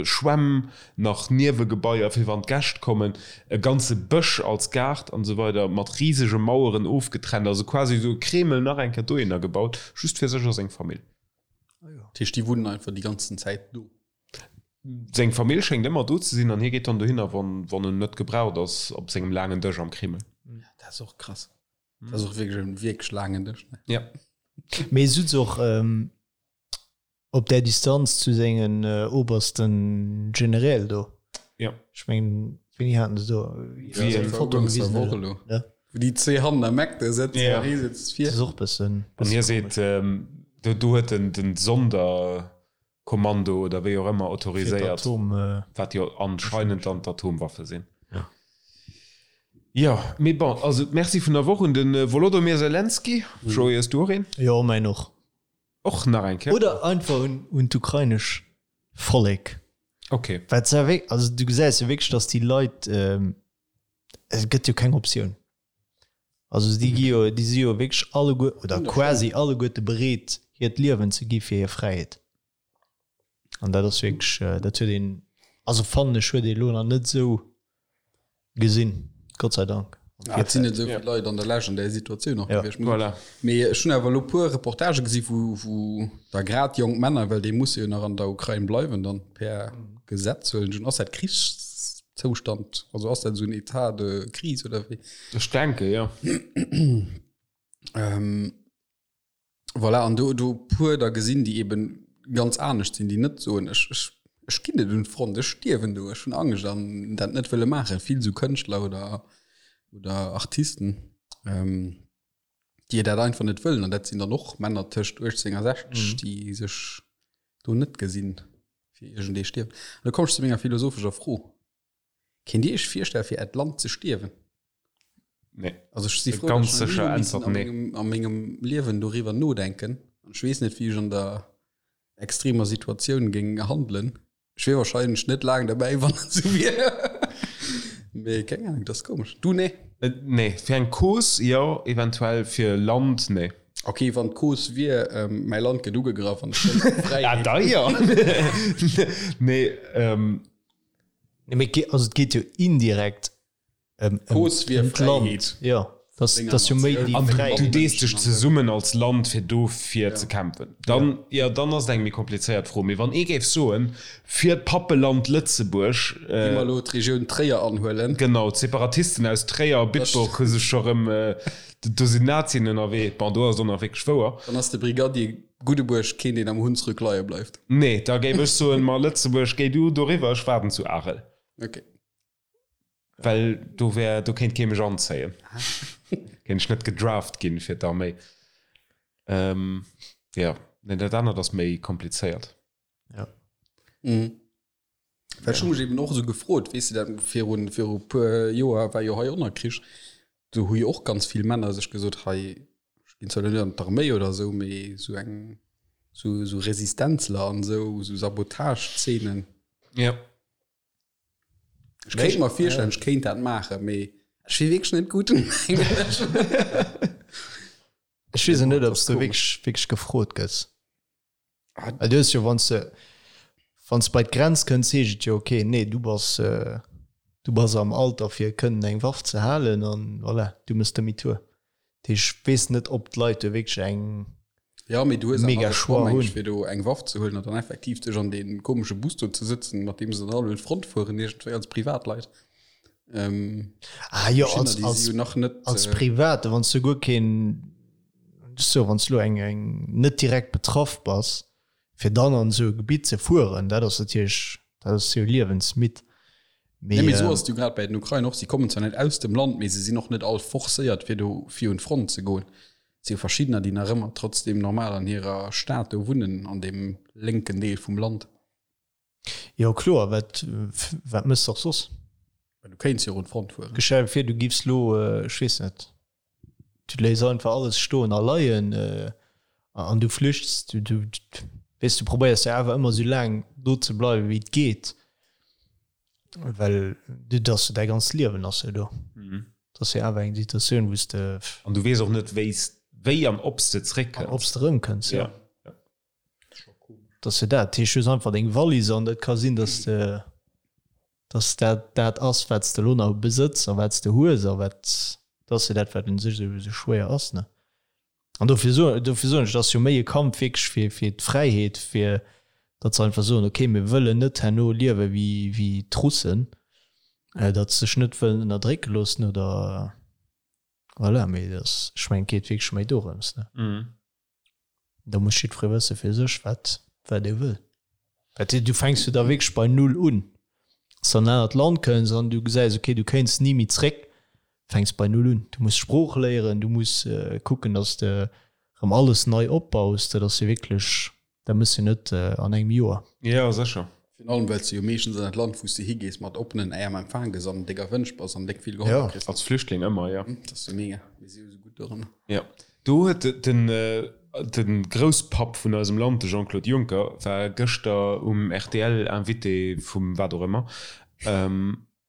[SPEAKER 2] Schwämm, nach Niewegebaier fir wann d'Gäscht kommen, e ganze Bësch als Gaart an esou weider, mat risege Maueren ofgetrennt, also quasi esou e Kreml nach eng Kéier dohinner gebaut, just fir sech a seng Famill.
[SPEAKER 1] Dat heescht, déi wunnen einfach déi ganzen Zäit do?
[SPEAKER 2] Seng Famill schéngt ëmmer do ze sinn an hie geet dann dohinner, wann wann en net gebraucht ass op sengem laangen Dësch am Kreml.
[SPEAKER 1] Dat ass och krass. Dat ass och wierklech en wierklech laangen Dësch, ne?
[SPEAKER 2] Ja.
[SPEAKER 3] Mee sutz och op där Distanz zu sengen obersten Generäl do.
[SPEAKER 2] Ja.
[SPEAKER 3] Ech mengen, wéini haten se do
[SPEAKER 2] Wéi
[SPEAKER 3] eng Foto gewisen?
[SPEAKER 1] Elo. Ja. Wou déi zwee hannen am Eck do sëtzen
[SPEAKER 2] Ja.
[SPEAKER 1] an hie sëtzt vir.
[SPEAKER 3] Dat ass och bëssen.
[SPEAKER 2] An hie seet, do do huet den den Sonder Kommando oder wéi och ëmmer autoriséiert, wat jo anscheinend dann d'Atomwaffe sinn. Jo, mee bon, also d'Merci vun der Woch un de Wolodomyr Zelenskyj. Joé, hues du och een?
[SPEAKER 3] Jo, mäin och.
[SPEAKER 2] Och nach eng Kéier?
[SPEAKER 3] Oder einfach un, un d'ukrainesch Vollek.
[SPEAKER 2] Ok.
[SPEAKER 3] Wat se wéi, also du gesäis jo wierklech, datt déi Leit, et gëtt jo keng Optioun. Also déi gi jo, déi si jo wierklech alleguer oder quasi alleguerte bereet, hiert Liewen ze gi fir hir Fräiheet. An dat ass wierklech, dat huet een, also fannen ech, huet ee elo nach net esou gesinn, Gott sei Dank.
[SPEAKER 1] Ja, et sinn net esou vill Leit an der Lescht an där Situatioun och gewiescht.
[SPEAKER 2] Voilà.
[SPEAKER 1] Mee ech hunn awer elo puer Reportagë gesi wou, wou da grad jonk Männer, well déi musse jo nach an der Ukrain bleiwen dann per Gesetz, huelen ech un, ass dat Krichszoustand, also ass dat esou en État de crise oder wéi?
[SPEAKER 2] Ech denke jo.
[SPEAKER 1] Ähm, voilà, an do, do puer da gesinn, déi eben ganz anescht sinn, déi net soen, ech, ech. Ech ginn net un d'Front, ech stierwen do, ech hunn Angscht an dat net wëlle maachen. Vill esou Kënschtler oder, oder Artisten, déi dat einfach net wëllen. An dat sinn dann och Männer tëscht 18 a 60, déi sech do net gesinn, fir iergendee stierwen. An da komm ech zu menger philosophescher Fro. Kéint Dir Iech virstellen, fir Äert Land ze stierwen?
[SPEAKER 2] Nee.
[SPEAKER 1] Also ech si frou,
[SPEAKER 2] Ganz
[SPEAKER 1] dass ech
[SPEAKER 2] sécher
[SPEAKER 1] nach ni hu missen
[SPEAKER 2] Äntwert
[SPEAKER 1] a
[SPEAKER 2] nee.
[SPEAKER 1] mengem, a mengem Liewen doriwwer nodenken. An ech weess net, wéi ech an der extremer Situatioun géing handelen. Ech wier wahrscheinlech net laang derbäi, wann et esou wier. Mee keng Ahnung, dat ass komesch. Du, nee?
[SPEAKER 2] Nee, fir eng Cause jo, eventuell, fir Land nee.
[SPEAKER 1] Ok, wann d'Cause wier, mäi Land gëtt ugegraff an ech wëll
[SPEAKER 2] Fräiheet. Ah, da jo. Nee,
[SPEAKER 3] Nee, mee et also et geet jo indirekt ëm
[SPEAKER 1] D'Cause wier
[SPEAKER 3] ëm d'Land.
[SPEAKER 1] Fräiheet.
[SPEAKER 3] Jo, dat
[SPEAKER 1] Denger
[SPEAKER 3] ass jo méi
[SPEAKER 1] Natioun.
[SPEAKER 3] déi
[SPEAKER 2] An du
[SPEAKER 3] Fräiheet.
[SPEAKER 2] dees dech zesummen als Land fir dofir ze kämpfen. Dann, jo, dann ass et eng méi komplizéiert Fro. Mee wann ee géif soen, fir d'Pappeland Lëtzebuerg.
[SPEAKER 1] Gi mer elo d'Regioun Tréier anhuelen.
[SPEAKER 2] Genau, d'Separatisten aus Tréier a Bitburg hu sech scho rëm, do sinn Nazien ënnerwee. Bon, do ass et och nach wierklech wouer.
[SPEAKER 1] Dann ass de Brigadier Guddebuerg keen, deen am Hunsrück leie bleift.
[SPEAKER 2] Nee, da géif ech soen, ma Lëtzebuerg, géi du doriwwer, ech waarden zu Arel.
[SPEAKER 1] Ok.
[SPEAKER 2] Well do wär, do kéint kee mech anzéien. Kéint ech net gedraft ginn fir d'Arméi. Jo, nee, dat anert ass méi komplizéiert.
[SPEAKER 3] Ja.
[SPEAKER 1] Mhm. Well ech hu mech eben och esou gefrot, weess de, dat virun, viru puer Joer war jo hei och nach Krich, do hu jo och ganz vill Männer sech gesot, hei, ech ginn zwar elo net an d'Arméi oder esou, mee esou eng, esou, esou Resistenzler an esou, esou Sabotage-Zeenen.
[SPEAKER 2] Ja.
[SPEAKER 1] Ech kéint mer virstellen, ech kéint dat maachen, mee ech wier wierklech net gutt, mengen ech.
[SPEAKER 3] Ech weess och net, ob s du wierklech, wierklech gefrot gëss. Well du hues jo, wann s de, wann s de bei d'Grenz kënns, heescht et jo, okay, nee, du bass, du bass am Alter fir kënnen eng Waff ze halen an voilà, du mëss Demi-tour. Dat heescht, ech weess net, ob d'Leit do wierklech eng
[SPEAKER 1] Ja, mee du hues awer
[SPEAKER 3] mega
[SPEAKER 1] de Choix,
[SPEAKER 3] Choix
[SPEAKER 1] meng ech,
[SPEAKER 3] hunn.
[SPEAKER 1] fir do eng Waff ze huelen an dann effektiv dech an dee komesche Bus do ze sëtzen, mat deem se dann all un d'Front fueren, iergendwéi als Privatleit. Ähm,
[SPEAKER 3] Ah jo,
[SPEAKER 1] Verschiddener,
[SPEAKER 3] als,
[SPEAKER 1] déi
[SPEAKER 3] als,
[SPEAKER 1] si jo nach net,
[SPEAKER 3] als
[SPEAKER 1] äh,
[SPEAKER 3] Private, wann s du guer keen, so wann s du elo eng, eng net direkt betraff bass, fir dann an esou e Gebitt ze fueren, dat ass natierlech, dat ass jo liewensmidd.
[SPEAKER 1] Nee,
[SPEAKER 3] Mee,
[SPEAKER 1] mee esou
[SPEAKER 3] ähm,
[SPEAKER 1] ass et jo grad bei den Ukrainer och. Si kommen zwar net aus dem Land, mee se sinn och net all forcéiert, fir do fir un d'Front ze goen. Et si jo verschiddener, déi nach ëmmer trotzdem normal an hirer Stad do wunnen, an deem lénken Deel vum Land.
[SPEAKER 3] Jo kloer, wat wat mëss de och soss?
[SPEAKER 1] Well du kéints jo och un d'Front fueren.
[SPEAKER 3] Stell dir vir du giffs lo, ech weess net, du léiss einfach alles stoen a leien an du flüchts, du du weess du probéiers jo awer ëmmer sou laang do ze bleiwen wéi et geet, well du dat ass jo däi ganzt Liewen ass jo do. Dat ass jo awer eng Situatioun wou s de.
[SPEAKER 2] An du weess och net wéi s wéi an ob s de zréckkënns.
[SPEAKER 3] An ob s de erëmkënns, jo. Dat ass jo dat. Dat heescht, du hues einfach deng Wallis an et ka sinn, dass de, dass dat dat ass, wat s de elo nach besëtz a wat s de hues a wat, dat ass jo dat, wat un sech esou esou schwéier ass, ne? An dofir soen, dofir soen ech, et ass jo méi e Kampf wierklech fir, fir d'Fräiheet, fir datt se einfach soen, okay, mir wëllen net herno liewe wéi, wéi d'Russen, datt se sech net wëllen ënnerdrécke loossen oder voilà. Mee dat ass, ech mengen, et geet wierklech méi dorëms, ne? Da muss jiddweree wësse fir sech, wat, wat e wëll. Well du fänks jo da wierklech bei Null un. Wann s du an en anert Land kënns an du gesäis, okay, du kéints ni méi zréck, fänks bei Null un. Du muss d'Sprooch léieren, du muss kucken, datt s de erëm alles nei opbaus. Dat ass jo wierklech, dat mëss jo net an engem Joer.
[SPEAKER 2] Jo, sécher.
[SPEAKER 1] Virun allem, well s de jo meeschtens an dat Land, wou s de higees, mat oppenen Äerm empfaang gëss an déck erwënscht bass an déck vill gehollef kriss.
[SPEAKER 2] Als Flüchtling ëmmer, jo.
[SPEAKER 1] Dat ass jo mega. Mir si jo esou gutt doranner.
[SPEAKER 2] Jo, do huet den de Grousspapp vun eisem Land, de Jean-Claude Juncker, war gëschter um rtl Invité vum wat och ëmmer.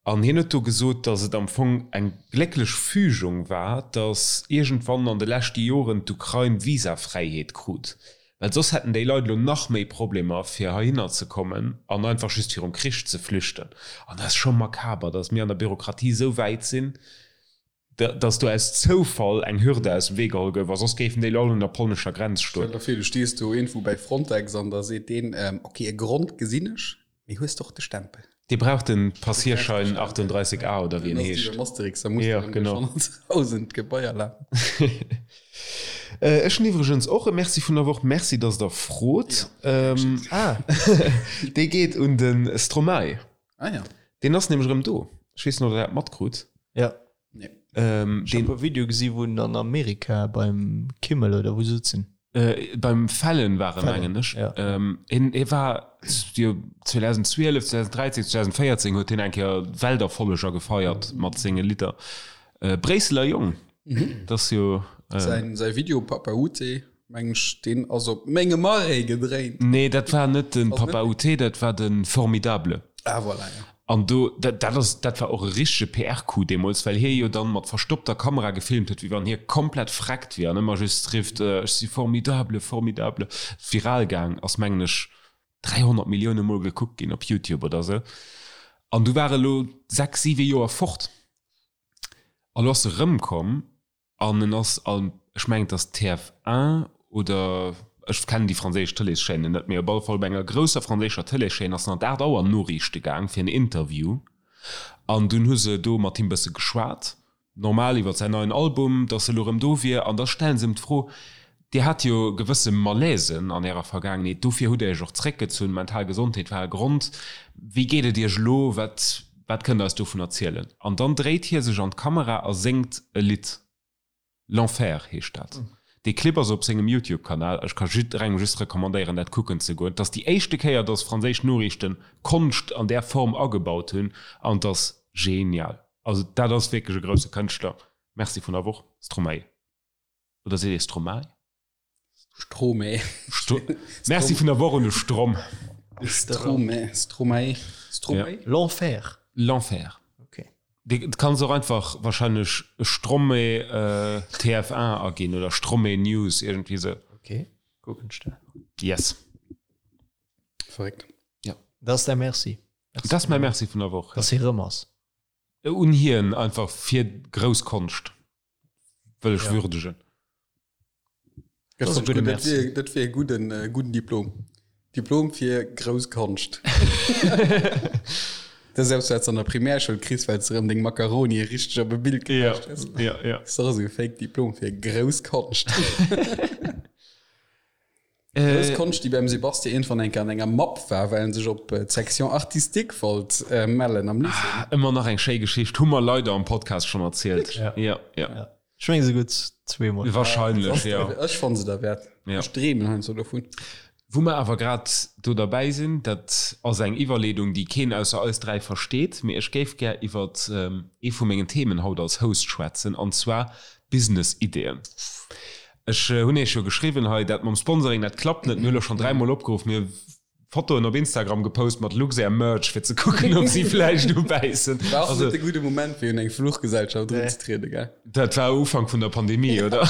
[SPEAKER 2] An hien huet do gesot, datt et am Fong eng glécklech Fügung war, datt iergendwann an de leschte Joren d'Ukrain Visafräiheet krut, well soss hätten déi Leit elo nach méi Problemer fir heihinner ze kommen an einfach just virum Krich ze flüchten. An dat ass scho makaber, datt mir an der Bürokratie esou wäit sinn, datt do aus Zoufall eng Hürde aus dem Wee geholl gouf a soss géifen déi elo all un der polnescher Grenz
[SPEAKER 1] stoen. Stell der vir, du stees do iergendwou bäi Frontex an da seet deen, Ok, e Grond gesinn ech, mee hues de och de Stempel?
[SPEAKER 2] Dee brauch den Passierschein 38 A oder wéi en heescht.
[SPEAKER 1] Dann ass et wéi beim Asterix, da muss de erëm duerch 100.000 Gebaier lafen.
[SPEAKER 2] Ech hunn iwwregens och e Merci vun der Woch. Merci, dass Der frot.
[SPEAKER 3] Ah.
[SPEAKER 2] Dee geet un de Stromae.
[SPEAKER 1] Ah ja.
[SPEAKER 2] Deen ass nämlech erëm do. Ech weess net, ob Der dat matkrut.
[SPEAKER 3] Ja.
[SPEAKER 1] Nee.
[SPEAKER 2] Ähm,
[SPEAKER 3] Ech hab e Video gesi wou en an Amerika beim Kimmel oder wou sëtzen.
[SPEAKER 2] Äh, beim Fallon war e mengen ech.
[SPEAKER 3] Ja.
[SPEAKER 2] Ähm, hien, hie war jo 2012, 2013, 2014 huet hien eng Kéier Welterfolleger gefeiert mat senge Lidder. Äh, Bréisseler Jong,
[SPEAKER 1] Mhm.
[SPEAKER 2] dat ass jo. Äh,
[SPEAKER 1] Säin, säi Video Papa Ute, mengen ech, deen ass op mengem Arrêt gedréint.
[SPEAKER 2] Nee, dat war net den
[SPEAKER 1] Ass net
[SPEAKER 2] Papa Ute, dat war de Formidable.
[SPEAKER 1] Ah, voilà, ja.
[SPEAKER 2] An do, dat, dat ass, dat war och e richtege PR-Coup deemools, well hie jo dann mat verstoppter Kamera gefilmt huet, wéi wann hie komplett vreckt wier an ëmmer just rifft, Ech si formidable, formidable. Viral gaang ass, mengen ech, 300 Millioune Mol gekuckt ginn op YouTube oder sou. An du war e lo 6, 7 Joer fort. A lo ass e rëmkomm An en ass an, ech mengen et ass TF1 oder ech kennen déi franséisch Tëleeschaînen net, mee op alle Fall op enger grousser franséischer Tëleeschaîne ass en an d'Aacht Auer Noriichte gaang fir en Interview. An dunn hu se do mat him bësse geschwat, normal iwwer säin neien Album, datt e lo rëm do wier. An da stellen se him d'Fro, Dir hat jo gewësse Malaisen an Ärer Vergaangenheet, dofir hutt Dir Iech och zréckgezunn, mental Gesondheet war e Grond. Wéi geet et Iech elo? Wat wat kënnt Der eis dovun erzielen? An dann dréit hie sech an d'Kamera a séngt e Lidd. L'Enfer heescht dat. Dee Clip ass op sengem YouTube-Kanal. Ech ka jidderengem just recommandéieren, dat kucken ze goen. Et ass déi éischte Kéier, dass franséisch Noriichten Konscht an där Form agebaut hunn an et ass genial. Also dat ass wierklech e grousse Kënschtler. Merci vun der Woch, Stromae. Oder seet ee Stromae?
[SPEAKER 1] Stromae.
[SPEAKER 2] Sto Merci vun der Woch un de Strom.
[SPEAKER 1] Stromae, Stromae, Stromae?
[SPEAKER 2] Ja.
[SPEAKER 3] L'Enfer.
[SPEAKER 2] L'Enfer.
[SPEAKER 3] Okay.
[SPEAKER 2] Du kanns och einfach wahrscheinlech Stromae äh, TF1 aginn oder Stromae News, irgendwie sou.
[SPEAKER 3] Okay, kucken ech dat.
[SPEAKER 2] Yes.
[SPEAKER 1] Verréckt.
[SPEAKER 2] Ja.
[SPEAKER 3] Dat ass däi Merci.
[SPEAKER 2] Dat ass mäi Merci vun der Woch.
[SPEAKER 3] Dass hie rëm ass.
[SPEAKER 2] Un hien einfach fir grouss Konscht. Wëll ech würdegen.
[SPEAKER 1] Dat
[SPEAKER 3] ass e gudde Merci.
[SPEAKER 1] Dat wier e gudden, äh, gudden Diplom. Diplom fir grouss Konscht. Dat ass eppes, wat s an der Primärschoul kriss, well s de erëm deng Macaroni richteg op e Bild
[SPEAKER 2] Ja,
[SPEAKER 1] gepecht hues.
[SPEAKER 2] ja, ja.
[SPEAKER 1] Dat ass och esou e Fake Diplom fir grouss Konscht. Grouss Konscht, déi beim Sebastien iergendwann eng Kéier an enger Mapp war, well en sech op d'Section artistique wollt mellen am Lycée.
[SPEAKER 2] Ëmmer nach eng schéi Geschicht, hu mer leider am Podcast schonn erzielt.
[SPEAKER 3] Ja.
[SPEAKER 2] Ja, ja.
[SPEAKER 3] Ja. Ech meng esouguer zweemol.
[SPEAKER 2] Wahrscheinlech, ja.
[SPEAKER 1] Ech fanne se derwäert.
[SPEAKER 2] Ja.
[SPEAKER 1] Ech dreemen heiansdo dovun.
[SPEAKER 2] Wou mer awer grad do derbäi sinn, dat ass eng Iwwerleedung, déi keen ausser eis 3 versteet, mee ech géif gär iwwert ee vu mengen Themen haut als Host schwätzen, an zwar Business-Ideeën. Ech hunn Iech jo geschriwwen hei, dat mam Sponsoring, dat klappt net. Mir hu lo schonn dräimol opgeruff, mir hu Fotoen op Instagram gepost mat Luxair Merch, fir ze kucken, ob si vläicht ubäissen.
[SPEAKER 1] War och
[SPEAKER 2] Also,
[SPEAKER 1] net de gudde Moment, fir un eng Fluchgesellschaft erunzetrieden, gell?
[SPEAKER 2] dat war Ufank vun der Pandemie, oder?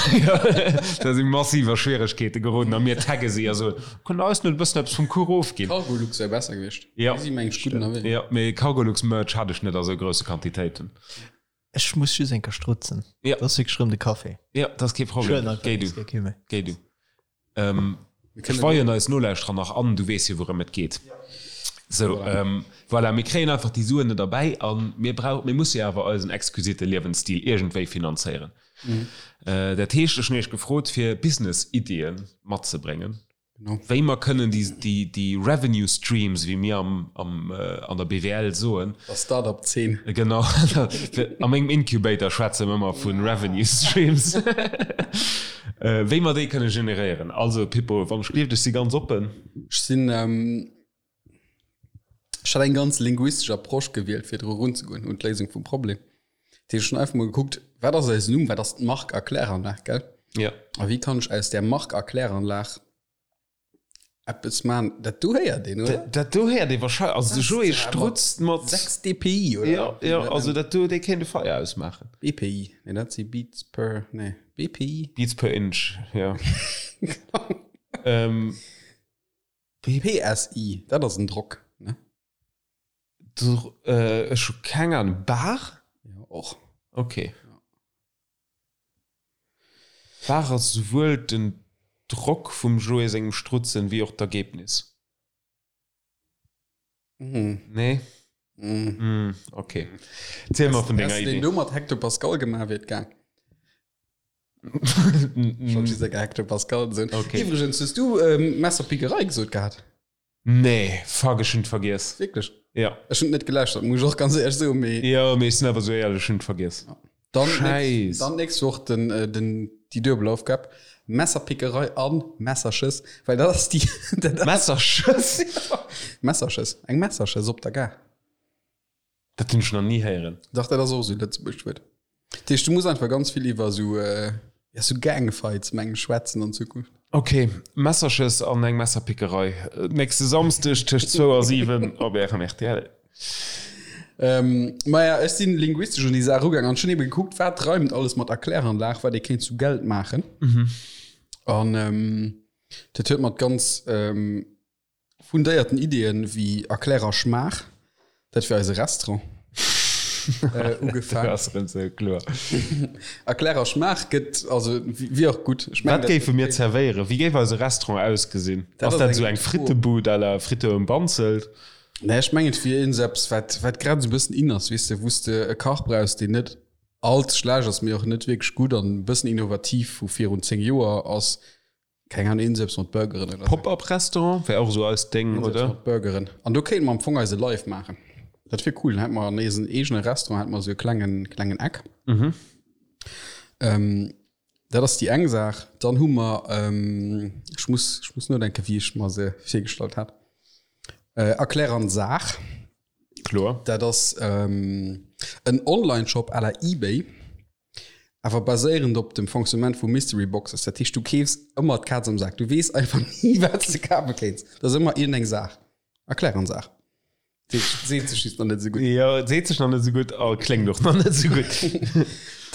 [SPEAKER 2] Da si massiv a Schwieregkeete geroden a mir tagge si a soen, Kënnt der eis net e bëssen eppes vum Kuch ofginn?
[SPEAKER 1] Cargolux wär besser gewiescht.
[SPEAKER 2] Ja.
[SPEAKER 1] Déi si mengen ech gutt ënnerwee.
[SPEAKER 2] Jo, mee Cargolux Merch hat ech net a sou grousse Quantitéiten.
[SPEAKER 3] Ech muss just eng Kéier strutzen.
[SPEAKER 2] Ja.
[SPEAKER 3] Dat ass wierklech rëm de Café.
[SPEAKER 2] Ja, dat ass kee Problem.
[SPEAKER 3] Ech huelen
[SPEAKER 2] Géi du.
[SPEAKER 3] einfach kee méi.
[SPEAKER 2] Géi du. Ähm, ech weien eis Nolauschterer nach an, du weess jo wourëm et geet. Sou, ähm, voilà, mir kréien einfach déi Suen net erbäi a mir brauch, mir musse jo awer eisen exquisite Liewensstil iergendwéi finanzéieren. Äh, dat heescht, ech hunn iech gefrot, fir Business-Iddie matzebréngen.
[SPEAKER 1] Genau.
[SPEAKER 2] Wéi mer kënnen déi, déi, déi Revenue Streams, wéi mir am, am, an der BWL soen.
[SPEAKER 1] Der Start-up-Zeen.
[SPEAKER 2] Genau. A mengem Incubator schwätze mer ëmmer vu Revenue Streams. Wéi mer déi kënne generéieren. Also Pippo, wann ech gleeft, ech si ganz oppen.
[SPEAKER 1] Ech sinn, ech hat eng ganz linguistesch Approche gewielt, fir dru erunzegoen un d'Léisung vum Problem. Dat heescht, ech hunn einfach mol gekuckt, wat ass eisen Numm, wat ass d'Mark a Kläranlag, gell?
[SPEAKER 2] Ja.
[SPEAKER 1] A wéi kann ech aus där Mark a Kläranlag eppes maachen? Dat do héiert een, oder?
[SPEAKER 2] Dat do héiert ee wahrscheinlech. Also de Joé strutzt mat.
[SPEAKER 1] 6 dpi, oder?
[SPEAKER 2] Ja, ja, also dat do, dee kéint e Feier ausmaachen.
[SPEAKER 1] BPI, nee, dat si Beats per, nee, BPI?
[SPEAKER 2] Beats per Inch, ja. ähm,
[SPEAKER 1] PSI, dat ass en Drock, ne?
[SPEAKER 2] Äh, ech hu keng Ahnung. Bar?
[SPEAKER 1] Ja, och.
[SPEAKER 2] Okay. Bar ass souwuel den Drock vum Joé sengem Strutzen wéi och d'Ergebnis.
[SPEAKER 1] Mm.
[SPEAKER 2] Nee?
[SPEAKER 1] Mm.
[SPEAKER 2] Mm, okay. Ziel mer vun denger
[SPEAKER 1] Häss de
[SPEAKER 2] Idee.
[SPEAKER 1] den do mat Hectopascal gemaach, wier et gaang. Schon dieser gehackte Pascal sinn.
[SPEAKER 2] Okay.
[SPEAKER 1] Iwwregens, hues du ähm, Messerpickerei gesot gehat?
[SPEAKER 2] Nee, fuck, ech hunn et vergiess.
[SPEAKER 1] Wierklech?
[SPEAKER 2] Ja.
[SPEAKER 1] Ech hunn et net geläuschtert, muss ech och ganz éierlech soen, mee.
[SPEAKER 2] Jo, mee ech sinn awer esou éierlech, ech hunn et vergiess.
[SPEAKER 1] Dann
[SPEAKER 2] Scheiss.
[SPEAKER 1] Dann nächst Woch den, äh, den, déi duebel Aufgab. Messerpickerei an Messerschëss, well dat ass déi. dat ass-
[SPEAKER 2] Messerschëss?
[SPEAKER 1] Messerschëss, eng Messerschëss op der Gare.
[SPEAKER 2] Dat hunn ech nach ni héieren.
[SPEAKER 1] Dach, dat ass och esou e lëtzebuergescht Wuert. Dat heescht, du muss einfach ganz vill iwwer esou, ja, esou Gangfights, meng ech, schwätzen an Zukunft.
[SPEAKER 2] Ok, Messerschëss an eng Messerpickerei. Nächste Samsdeg tëscht zwou a 7 op Ärem rtl.
[SPEAKER 1] Maja, ech sinn linguistesch un déi Saach erugaang an ech hunn ebe gekuckt, wat reimt alles mat Erkläranlag, wat ee kéint zu Geld maachen. An dat huet mat ganz Fundéierten Ideeën wéi Erklärer Schmaach, dat wier eise Restaurant, ugefaang.
[SPEAKER 2] Dat ass erëm sou kloer.
[SPEAKER 1] Erklärer Schmaach gëtt, also wier och gutt. Ech mengen,
[SPEAKER 2] Wat géife mir zerwéieren? Wéi géif eise Restaurant ausgesinn?
[SPEAKER 1] Dat
[SPEAKER 2] Ass
[SPEAKER 1] ass
[SPEAKER 2] dat
[SPEAKER 1] eng
[SPEAKER 2] esou eng
[SPEAKER 1] gutt Fro.
[SPEAKER 2] Frittebud à la Fritte um Banzelt?
[SPEAKER 1] Nee, ech mengen, et wier iergendeppes, wat, wat grad esou e bëssen in ass, weess de, wou s de e Kach brauchs, deen net all ze schlecht ass, mee och net wierklech gutt an e bëssen innovativ vu virun 10 Joer ass. Keng Ahnung, iergendeppes mat Burgeren oder sou.
[SPEAKER 2] Pop-up-Restaurant wär och esou eist Déng,
[SPEAKER 1] Iergendeppes
[SPEAKER 2] oder?
[SPEAKER 1] mat Burgeren. An do kéinte mer am Fong eise Live maachen. Dat wier cool. Dann hätte mer an eisen eegene Restaurant hätte mer esou e klengen, klengen Eck.
[SPEAKER 2] Mhm.
[SPEAKER 1] Ähm, dat ass déi eng Saach. Dann hu mer, ähm, ech muss, ech muss nodenken, wéi ech mer se virgestallt hat. Äh, Erklär an Saach.
[SPEAKER 2] Kloer.
[SPEAKER 1] Dat ass ähm, en Online-Shop à la eBay. Awer baséierend op dem Fonctionnement vu Mystery Boxes. Dat heescht, du keefs ëmmer d'Kaz am Sak. Du weess einfach ni, wat s de kafe kéints. Dat ass ëmmer iergendeng Saach. Erklär an Saach. Seet seet sech just nach net esou gutt.
[SPEAKER 2] Jo, et seet sech nach net esou gutt a kléngt och nach net esou gutt.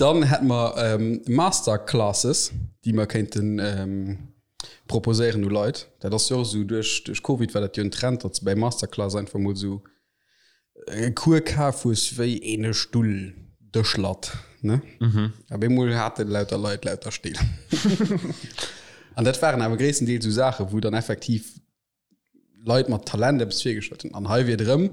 [SPEAKER 1] Dann hätte mer Masterclasses, déi mer kéinten proposéieren u Leit. Dat ass jo och esou, duerch duerch Covid war dat jo en Trend, datt s de bäi Masterclass einfach mol esou e Cours kaf hues wéi een e Stull Dëschlatt, ne? Mhm. Op eemol hate lauter Leit lauter Still. An dat waren awer gréisstendeels esou Saachen, wou dann effektiv Leit mat Talent eppes virgestallt hunn. An hei wier et erëm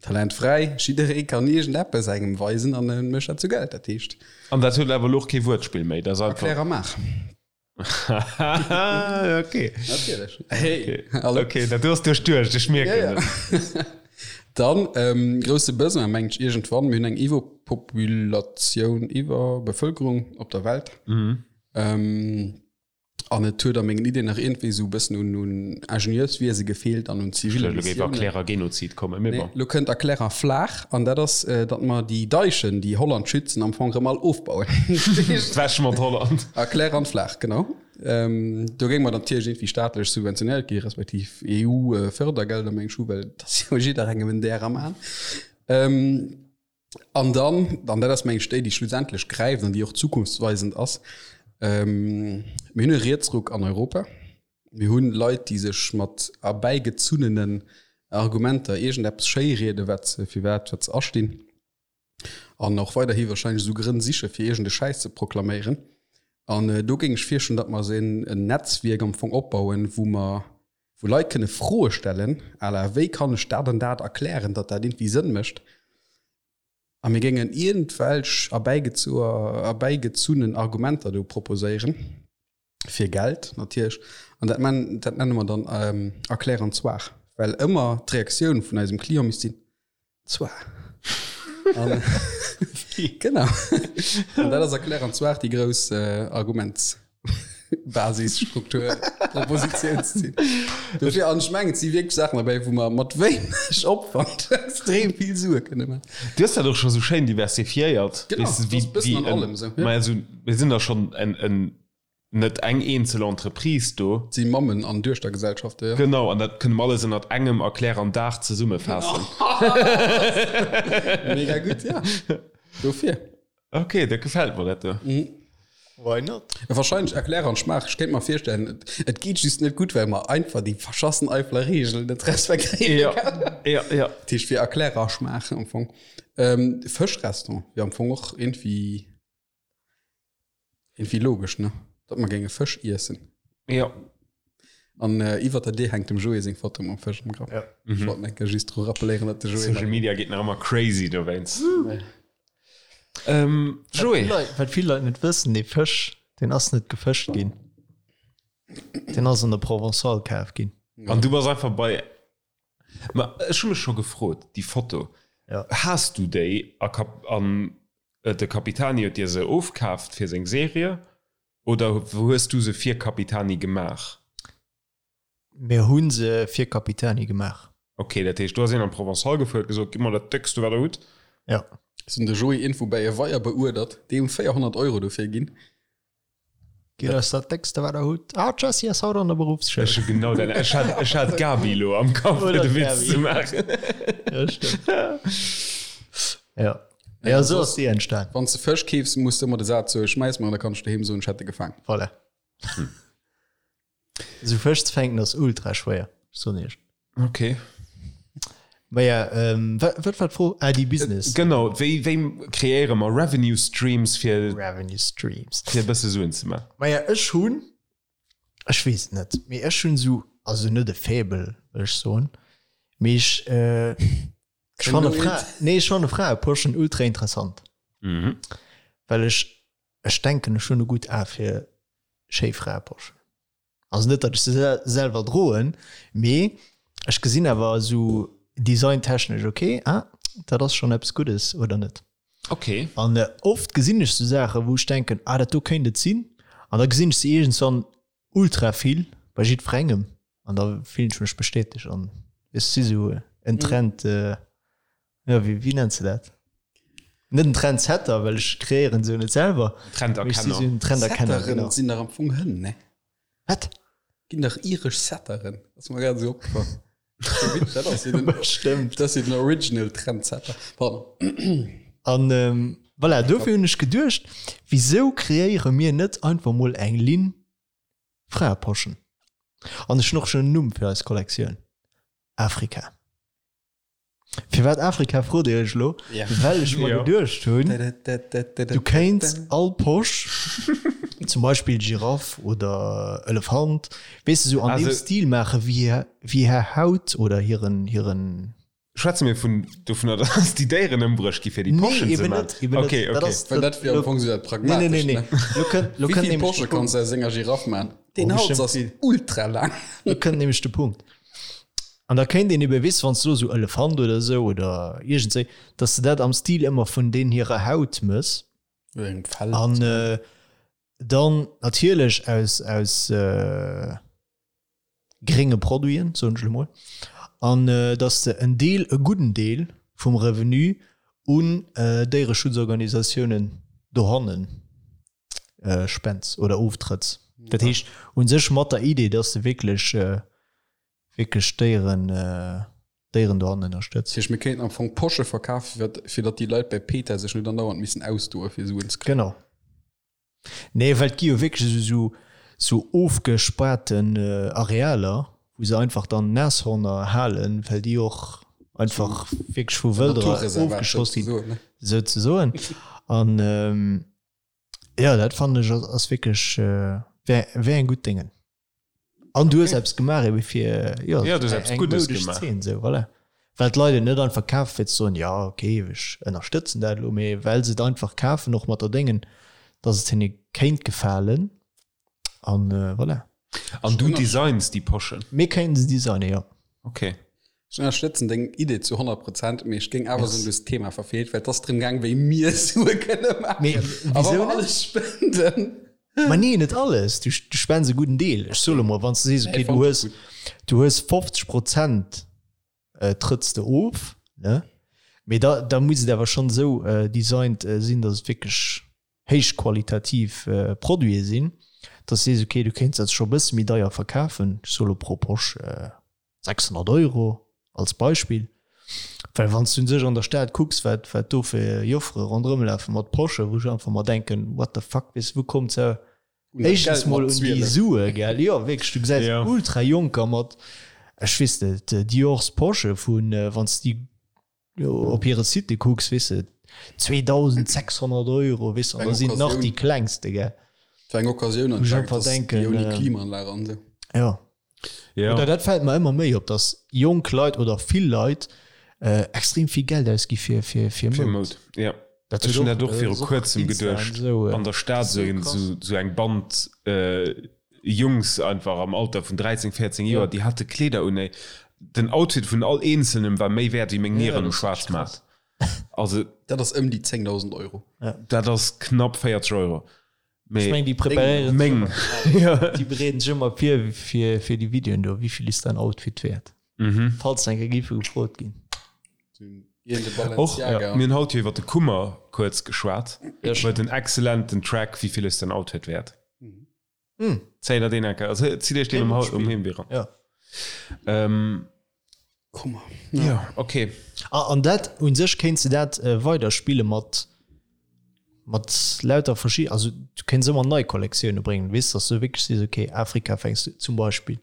[SPEAKER 1] talentfräi, jidderee kann iergendeppes engem weisen an e mécht dat zu Geld. Dat heescht.
[SPEAKER 2] An dat huet awer elo och kee Wuertspill méi, dat ass einfach.
[SPEAKER 1] Erklär a maach.
[SPEAKER 2] okay.
[SPEAKER 1] Natierlech. Hey,
[SPEAKER 2] okay.
[SPEAKER 1] Hallo.
[SPEAKER 2] Okay, dat du hast duerchduecht, ech mierken
[SPEAKER 1] ja, ja. Dann ähm, grousse Besoin mengt ech iergendwann, mir hunn eng Iwwerpopulatioun, Iwwerbevölkerung op der Welt.
[SPEAKER 2] Mhm.
[SPEAKER 1] Ähm, an et huet a mengen Ideen nach iergendwéi esou e bëssen un, un Ingenieurswiese gefeelt an un zivile
[SPEAKER 2] Elo géif
[SPEAKER 1] Missiounen.
[SPEAKER 2] Erklärer Genozid kommen, mee
[SPEAKER 1] Nee,
[SPEAKER 2] bon.
[SPEAKER 1] lo kënnt Erklärer Flaach an dat ass, äh, datt mer déi Deichen, déi Holland schützen, am Fong erëm all ofbauen.
[SPEAKER 2] Wäsch mat Holland.
[SPEAKER 1] Erklärer an Flaach, genau. Ähm, do géing mer dann natierlech iergendwéi staatlech subventionéiert gi respektiv EU-Fördergelder, meng ech, hu, well et ass jo jidderengem en Där am Aen. Ähm, An dann, an dat ass meng ech déi, déi schlussendlech gräift an déi och zukunftsweisend ass, mir hunn e Rietsruck an Europa. Mir hu Leit, déi sech mat erbäigezunnenen Argumenter iergendeppes schéirieden, wat se, firwat, wat se astinn. An och weiderhi wahrscheinlech esou Grënn siche fir iergende Schäiss ze proklaméieren. An do géing ech virschloen, datt mer esou en Netzwierk am Fong opbauen, wou mer, wou Leit kënne Froe stellen à la wéi kann ech dat an dat erklären, datt dat iergendwéi Sënn mécht. A mir géingen iergendwelch erbäigezunnen Argumenter do proposéieren, fir Geld natierlech. An dat man, dat nenne mer dann erklären zwar, well ëmmer d'Reaktioun vun eisem Client misst sinn, Zwar. An, genau. An dat ass erklären zwar déi grouss äh, Argumentsbasis, Struktur, Propositionszil. Dofir an ech mengen, et si wierklech Saachen derbäi, wou mer mat wéineg Opwand extrem vill Sue kënne maachen.
[SPEAKER 2] Du hues dat och scho sou schéin diversifiéiert.
[SPEAKER 1] Genau,
[SPEAKER 2] Weess de,
[SPEAKER 1] dat
[SPEAKER 2] wéi,
[SPEAKER 1] ass e bëssen
[SPEAKER 2] wéi
[SPEAKER 1] an
[SPEAKER 2] en,
[SPEAKER 1] allem esou, ja.
[SPEAKER 2] ma also, mir sinn da schonn en, en net eng eenzel Entreprise do.
[SPEAKER 1] Et si Mammen an Duechtergesellschaften, jo.
[SPEAKER 2] Genau, an dat kënne mer alles ënnert engem Erklär an Daach zesummefaassen.
[SPEAKER 1] Mega gutt, ja. Dofir.
[SPEAKER 2] Ok, dat gefält mer, dat do.
[SPEAKER 3] Why not?
[SPEAKER 1] Wahrscheinlech Erklär an Schmaach. Ech kéint mer virstellen, et geet just net gutt, well mer einfach déi verschassen Eifeler Reegelen net respektéieren.
[SPEAKER 2] Ja, ja, ja.
[SPEAKER 1] Dat heescht fir Erklär a Schmaach am Fong. Fëschrestaurant wier am Fong och iergendwéi. Irgendwie logesch, ne? Datt mer géinge Fësch iessen.
[SPEAKER 2] Ja.
[SPEAKER 1] An äh, iwwer der Dier hänkt dem Joé seng Foto mam Fësch am Grapp.
[SPEAKER 3] Ja.
[SPEAKER 1] Mhm. Ich wollt enke just dru rappelléieren, datt de Joé.
[SPEAKER 2] Social Media geet nach ëmmer crazy dowéinst. Ähm, Joé.
[SPEAKER 3] Wat vill Leit net wëssen, dee Fësch. Deen ass net gefëscht ginn. Deen ass an der Provençale kaf ginn.
[SPEAKER 2] An du bass einfach bei. Ma ech hu mech scho gefrot, déi Foto,
[SPEAKER 3] Ja.
[SPEAKER 2] has du déi a Kap an de Capitani huet dir se ofkaaft fir seng Serie oder hues du se fir Capitani gemaach?
[SPEAKER 3] Mir hu se fir Capitani gemaach.
[SPEAKER 2] Ok, dat heescht do ass een an d'Provençale gefuer, huet gesot, gitt mer dat déckste wat der hutt.
[SPEAKER 3] Ja.
[SPEAKER 1] Ech hunn de Joé Info bäi e Weier beuerdert, déi hunn 400 Euro dofir ginn.
[SPEAKER 3] Gitt eis dat déckste wat der hutt. Ah, d'Jessie ass haut an der Beruffsschoul.
[SPEAKER 2] Ech hu genau dat, ech hat, ech hat d'Gabi elo am Kapp fir de Witz ze maachen.
[SPEAKER 3] Ja, stëmmt. Ja. Ja, esou ass déi entstan.
[SPEAKER 1] Wann s de Fësch keefs, muss de ëmmer de Saz soen, schmäiss mer an da kann ech doheem soen, ech hätt e gefaang.
[SPEAKER 3] Voilà. Esou Fësch ze fänken ass ultra schwéier, ech soen iech.
[SPEAKER 2] Ok.
[SPEAKER 3] Maja, ähm, wat, wat war d'Fro? Ah, déi Business.
[SPEAKER 2] Genau, wéi, wéi kreéiere mer Revenue Streams fir,
[SPEAKER 3] Revenue Streams.
[SPEAKER 2] fir e bësse Suen ze man?
[SPEAKER 3] Maja, ech hunn, ech weess et net, mee ech hunn esou, also net e Faible, wëll ech soen, mee ech, äh, ech fanne Fra, nee, ech fanne Fraeposchen ultra interessant.
[SPEAKER 2] Mhm.
[SPEAKER 3] Well ech, ech denken, ech hunn e gutt A fir schéi Fraeposchen. Also net, datt ech se selwer droen, mee ech gesinn awer esou designtechnesch, ok, ah, dat ass schonn eppes Guddes, oder net?
[SPEAKER 2] Ok.
[SPEAKER 3] An oft gesinn ech sou Saachen, wou ech denken, ah, dat do kéint et sinn. An da gesinn ech se iergendswann ultra vill bei jiddwerengem an da fillen ech mech bestätegt an ech si sou en Trend, jo, wéi, wéi nenns de dat? Net en Trendsetter, well ech kreéieren se jo net selwer.
[SPEAKER 2] Trenderkenner.
[SPEAKER 3] Sinn Trenderkenner,
[SPEAKER 1] Setteren
[SPEAKER 3] genau.
[SPEAKER 1] sinn dach am Fong Hënn, ne?
[SPEAKER 3] Wat?
[SPEAKER 1] Ginn dach iresch Setteren. Ass mer grad esou opgefall. Dat ass jo den,
[SPEAKER 3] Bestëmmt.
[SPEAKER 1] dat ass jo den Original Trendsetter. Pardon.
[SPEAKER 3] An voilà, dofir hunn ech geduecht, wisou kreéiere mir net einfach mol eng Linn Fraeposchen? An ech hunn och schonn en Numm fir eis Kollektioun, Afrika. Firwat Afrika frot Dir Iech elo? Well ech mer geduecht hunn, du kéints all Posch, zum Beispill Giraff oder Elefant, weess de, sou an deem Stil maache wéi hir Haut oder hiren, hiren.
[SPEAKER 2] Schwätze mir vun dovunner, datt déi Déieren ëmbruecht gi fir déi Poschen ze maachen?
[SPEAKER 3] Nee, eben net, eben net.
[SPEAKER 1] Well dat wier am Fong sou dat Pragmatescht, ne?
[SPEAKER 3] Nee, nee, nee. Lo kënnt, lo
[SPEAKER 1] Wéi
[SPEAKER 3] kënnt
[SPEAKER 1] vill
[SPEAKER 3] nämlech de
[SPEAKER 1] Posche
[SPEAKER 3] Punkt.
[SPEAKER 1] kanns de aus enger Giraff maachen? Deen
[SPEAKER 3] Oh,
[SPEAKER 1] Hals
[SPEAKER 3] bestimmt
[SPEAKER 1] ass
[SPEAKER 3] vill.
[SPEAKER 1] ultra laang.
[SPEAKER 3] Lo kënnt nämlech de Punkt. An da kéint een ebe, weess de, wann s de lo sou Elefant oder sou oder iergendswéi, dass de dat am Stil ëmmer vun deen hirer Haut mëss.
[SPEAKER 1] Oder engem Fell.
[SPEAKER 3] An dann natierlech aus, aus grénge Produiten, soen ech elo mol. An dass de en Deel, e gudden Deel vum Revenu un Déiereschutzorganisatiounen dohannen spends oder oftrëtts. Dat heescht u sech mat der Idee, dass de wierklech, wierklech d'Déieren, d'Déieren dohannen ënnerstëtz.
[SPEAKER 1] Dat heescht, mir kéinten am Fong Posche verkafen, fir fir datt déi Leit bei PETA sech net andauernd missen ausdoe fir Suen ze kréien.
[SPEAKER 3] Genau. Nee, well et gi jo wierklech esou, esou ofgespaarten Arealer, wou se einfach dann Nashorner halen, well déi och einfach wierklech vu Wëlderer ofgeschoss ginn, souzesoen. An jo, dat fannen ech ass wierklech, wär, wär eng gutt Déngen. An du hues eppes gemaach ebe fir, jo,
[SPEAKER 2] Ja, du hues eppes
[SPEAKER 3] eng
[SPEAKER 2] Guddes
[SPEAKER 3] moudesch
[SPEAKER 2] gemaach.
[SPEAKER 3] Zeen, sou, voilà. Well d'Leit et net einfach kafen, fir ze soen, jo, okay, ech ënnerstëtzen dat elo, mee well se et einfach kafen, och mat der Déngen, dass et hinne kéint gefalen. An voilà.
[SPEAKER 2] An du designs déi Poschen?
[SPEAKER 3] Mir kéinten se designen, jo.
[SPEAKER 2] Ok.
[SPEAKER 1] Ech ënnerstëtzen deng Idee zu 100 Prozent, mee ech géing awer soen, du hues d'Thema verfeelt, well et ass drëm gaang, wéi mir Sue kënne maachen. A wa mer alles spenden.
[SPEAKER 3] Ma nee, net alles. Du, du spends e gudden Deel. Ech soe lo mol, wann s de sees, okay, du hues, du hues 50 Prozent trëtts de of, ne? Mee da, da muss et awer schonn esou designt sinn, datt et wierklech héichqualitativ Produite sinn, dass du sees, okay, du kéints dat scho e bësse méi deier verkafen, ech soe lo pro Posch 600 Euro als Beispill, well wann s du un sech an der Stad kucks, wat wat do fir Joffere ronderëm lafe mat Posche, wou ech einfach mer denken, what the fuck, weess de, wou kommt se éischtens mol un déi Sue, gell? Jo, wierklech, du gesäis ultra Jonker mat, ech weess net, Diors Posche vun, wann s de déi op hire Site kucks, weess de, 2.600 Euro, weess de, an da sinn et nach déi klengste, gell.
[SPEAKER 1] Fir eng Occasioun
[SPEAKER 3] an einfach denken,
[SPEAKER 1] ouni Klimaanlag an esou.
[SPEAKER 3] Ja.
[SPEAKER 2] Ja.
[SPEAKER 3] Oder dat fält mer ëmmer méi op, dass jonk Leit oder vill Leit äh, extrem vill Geld ausgi fir, fir, fir
[SPEAKER 2] Fir
[SPEAKER 3] Moud.
[SPEAKER 2] Moud, ja.
[SPEAKER 3] Dat
[SPEAKER 2] Ech hunn dat och viru kuerzem geduecht, an der Stad esou eng Band Jungs einfach am Alter vun 13, 14 Joer, déi hate Kleeder un, ey, den Outfit vun all eenzelnem war méi wäert wéi meng Nieren um Schwaarzmaart. Also.
[SPEAKER 1] Dat ass ëm déi 10.000 Euro.
[SPEAKER 2] Dat ass knapp 40 Euro.
[SPEAKER 3] Ech meng, déi preparéieren sech ëmmer, déi bereeden sech ëmmer vir fir déi Videoen do, wéi vill ist dein Outfit wäert? Falls eng Kéier géife gefrot ginn.
[SPEAKER 2] Och mir hunn haut jo iwwer de Kummer kuerz geschwat. Huet en excellenten Track Wie viel ist dein Outfit wert? Zéi der deen eng Kéier, also zitt iech deen um um Heemwee ran.
[SPEAKER 3] Ja.
[SPEAKER 1] Kummer.
[SPEAKER 2] Ja, okay.
[SPEAKER 3] Ah, an dat un sech kéints de dat weider spille mat mat lauter verschi also du kéints ëmmer nei Kollektioune bréngen, weess, dass du wierklech sees, okay, Afrika fänks du zum Beispill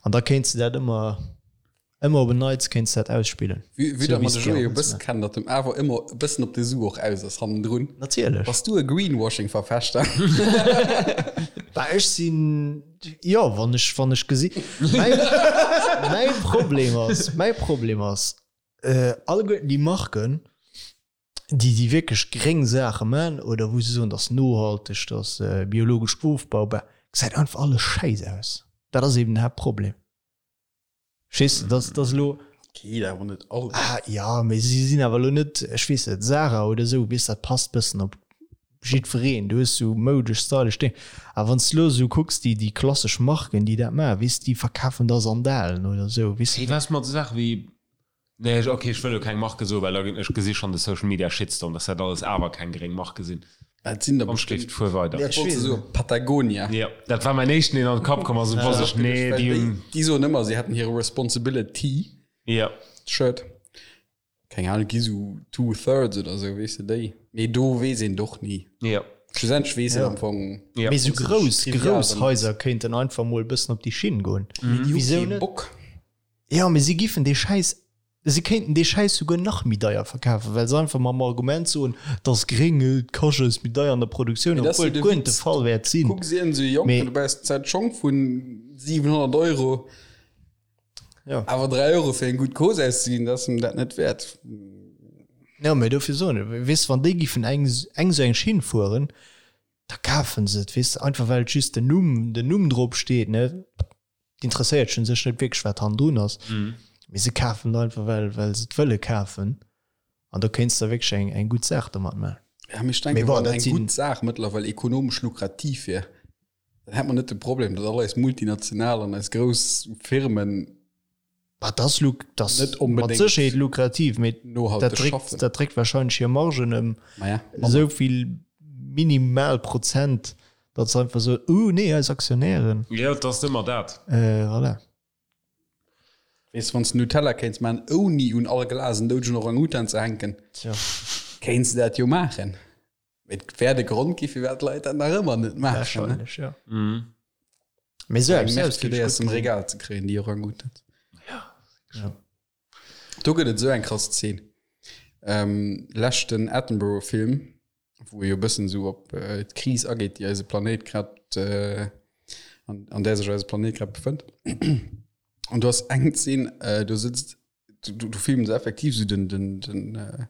[SPEAKER 3] an da kéints de dat ëmmer Ëmmer op en Neits kéints dat ausspillen.
[SPEAKER 1] Vue vue datt mer de Joé e bësse kennen, datt em awer ëmmer e bëssen op de Su och aus ass hannendrun.
[SPEAKER 3] Natierlech.
[SPEAKER 1] Bass du e Greenwashing-Verfechter?
[SPEAKER 3] Bah, ech sinn, jo, wann ech, wann ech gesi, mäi, mäi Problem ass, mäi Problem ass, alleguerten déi Marken, déi, déi wierklech gréng Saache man oder wou se soen, dat ass nohalteg, dat ass biologesch ofbaubar, gesäit einfach alles schäiss aus. Dat ass eben den Haaptproblem. Verstees de, dass dass elo.
[SPEAKER 1] Geet awer net
[SPEAKER 3] all. Ah ja, mee si sinn awer elo net, ech weess net, Zara oder esou, weess dat passt bëssen op jiddwereen. Du hues sou moudesch, stylesch Déng. Awer wann s de elo esou kucks, déi déi klassesch Marken, déi dat maachen, weess déi verkafen da Sandalen oder esou, weess
[SPEAKER 2] de. Hey, was mat esou Saache wéi Nee, ech, ok, ech wëll elo keng Marke soen, well da ginn, ech gesi schonn de Social Media Shitstorm, dass dat alles awer keng gréng Marke sinn.
[SPEAKER 1] Et sinn der
[SPEAKER 2] Komm,
[SPEAKER 1] bestimmt.
[SPEAKER 2] Stift, fuer weider.
[SPEAKER 1] Ech wollt se soen, Patagonia.
[SPEAKER 2] Jo, dat war mäin éischten, deen an de Kapp komm ass, und wosst ech, nee, déi hunn.
[SPEAKER 1] Déi soen ëmmer, si hätten hire Responsibility
[SPEAKER 2] Jo.
[SPEAKER 1] Shirt. Keng Ahnung, gi sou two thirds oder sou, weess de, déi. Mee do weess een et och ni.
[SPEAKER 2] Jo.
[SPEAKER 1] Schlussendlech weess een am Fong.
[SPEAKER 2] Jo.
[SPEAKER 3] Mee sou grouss, grouss Haiser kéinten einfach mol e bëssen op déi Schinn goen.
[SPEAKER 1] Mee déi hu
[SPEAKER 3] Wisou
[SPEAKER 1] kee
[SPEAKER 3] net?
[SPEAKER 1] Bock.
[SPEAKER 3] Jo, mee si giffen dee Schäiss, si kéinten dee Schäiss souguer nach méi deier verkafen, well se einfach mam Argument soen, et ass gréng, et kascht eis méi deier an der Produktioun,
[SPEAKER 1] Mee dat ass
[SPEAKER 3] obwuel
[SPEAKER 1] jo
[SPEAKER 3] et
[SPEAKER 1] de
[SPEAKER 3] guer net de
[SPEAKER 1] Witz.
[SPEAKER 3] Fall wäert sinn.
[SPEAKER 1] Kucks een esou jonk,
[SPEAKER 3] Mee.
[SPEAKER 1] du baus d'Zäit Schong vu 700 Euro,
[SPEAKER 3] Jo.
[SPEAKER 1] awer 3 Euro fir eng gutt Cause auszeginn, dat ass em dat net wäert.
[SPEAKER 3] Jo, mee dofir soen ech, weess de, wann déi giffen eng, eng esou eng Schinn fueren, da kafen se et, weess de, einfach well et just den Numm, den Numm drop steet, ne. D'interesséiert un sech net wierklech wat hannendrun ass, mee se kafen et einfach well well se et wëlle kafen an do kéints de wierklech eng eng gutt Saach domat maachen.
[SPEAKER 1] Ja, mee ech denken,
[SPEAKER 3] Mee bon,
[SPEAKER 1] wann
[SPEAKER 3] dat
[SPEAKER 1] eng
[SPEAKER 3] sinn.
[SPEAKER 1] gutt Saach mëttlerweil ekonomesch lukrativ wier, dann hätt mer net de Problem, datt all eis Multinational an eis grouss Firmen
[SPEAKER 3] Bah, dat ass luk dat ass
[SPEAKER 1] net
[SPEAKER 3] mat
[SPEAKER 1] onbedéngt
[SPEAKER 3] Sécherheet lukrativ, mee dat
[SPEAKER 1] nohalteg
[SPEAKER 3] dréckt
[SPEAKER 1] schaffen.
[SPEAKER 3] dat dréckt wahrscheinlech hir Margen ëm
[SPEAKER 1] Maja, manner.
[SPEAKER 3] esou vill minimal Prozent, datt se einfach soen, uh nee, eis Aktionären.
[SPEAKER 2] Jo, et ass ëmmer dat.
[SPEAKER 3] Voilà.
[SPEAKER 1] Weess, wann s de Nutella kéints maachen, ouni un all Glas en doudegen Orang-Utan ze hänken,
[SPEAKER 3] Tja.
[SPEAKER 1] kéints de dat jo maachen. Mee et wäert e Grond gi firwat d'Leit dat nach ëmmer net maachen. Ne?
[SPEAKER 3] Wahrscheinlech, jo. Mee esou
[SPEAKER 1] Eng
[SPEAKER 3] eppes
[SPEAKER 1] Nerv
[SPEAKER 3] aus
[SPEAKER 1] fir
[SPEAKER 3] géif
[SPEAKER 1] déi
[SPEAKER 3] ech
[SPEAKER 1] aus
[SPEAKER 3] gutt
[SPEAKER 1] dem
[SPEAKER 3] gesinn.
[SPEAKER 1] Regal ze kréien, déi Orang-Utans.
[SPEAKER 3] Ja.
[SPEAKER 1] Do gëtt et esou eng krass Zeen. Ähm, leschten Attenborough-Film, wou e jo e bëssen esou op äh, d'Kris ageet, déi eise Planéit grad, äh, an, an där sech eise Planéit grad befënnt. An du ass eng Zeen, äh, do sëtzt, du, du, du filmen se effektiv esou den, den, den, äh,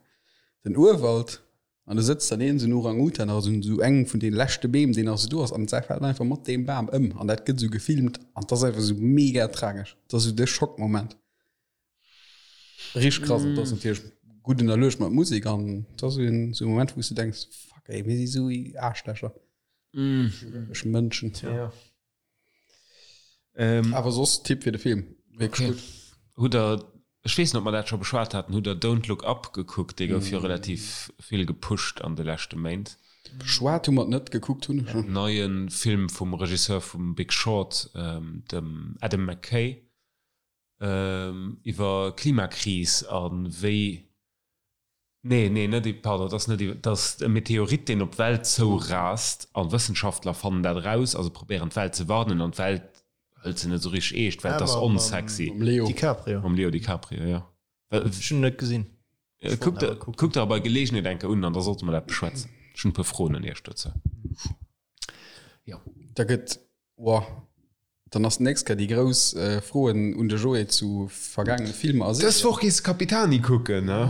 [SPEAKER 1] den Urwald an du sëtzt dann een esou en Orang-Utan, also esou engem vun de leschte Beem, deen nach esou do ass, an säi fält einfach mat deem Bam ëm an dat gëtt esou gefilmt an dat ass einfach esou mega tragesch. Dat ass esou de Schockmoment. Richteg krass, an dat ass natierlech gutt ënnerluecht mat Musek an dat ass esou en esou e Moment, wou s du denks, fuck ey, mir si esou Aarschlächer, ech Mënschen.
[SPEAKER 3] Ja.
[SPEAKER 2] Ähm,
[SPEAKER 1] Awer soss Tipp fir de Film, wierklech
[SPEAKER 2] Okay.
[SPEAKER 1] gutt.
[SPEAKER 2] Hutt der, ech weess net, ob mer dat scho beschwat haten, hutt der Don't Look Up gekuckt? Dee gouf jo relativ vill gepusht an de leschte Méint.
[SPEAKER 1] Beschwat hu mer et net, gekuckt hunn ech en.
[SPEAKER 2] Neie Film vum Regisseur vum Big Short, dem Adam McKay, iwwer Klimakris a wéi, nee, nee, net, pardon, et ass net iwwer, et ass e Meteorit, deen op d'Welt zourast a Wëssenschaftler fannen dat eraus a se probéieren d'Welt ze warnen an d'Welt hëlt se net esou richteg eescht, well et ass onsexy.
[SPEAKER 1] Mam Leo.
[SPEAKER 3] DiCaprio.
[SPEAKER 2] Mam Leo DiCaprio, jo.
[SPEAKER 3] Ech hunn en net gesinn.
[SPEAKER 2] Kuckt der, kuckt der bei Geleegenheet eng Kéier un an da sollte mer dat beschwätzen. Ech hunn e puer Froen un Iech dozou. Jo.
[SPEAKER 1] Da gëtt, Woah, dann ass d'nächst Kéier déi grouss Froen un de Joé zu vergaangene Filmer a
[SPEAKER 2] Dës
[SPEAKER 1] Serien.
[SPEAKER 2] Woch gees de Capitani kucken, ne?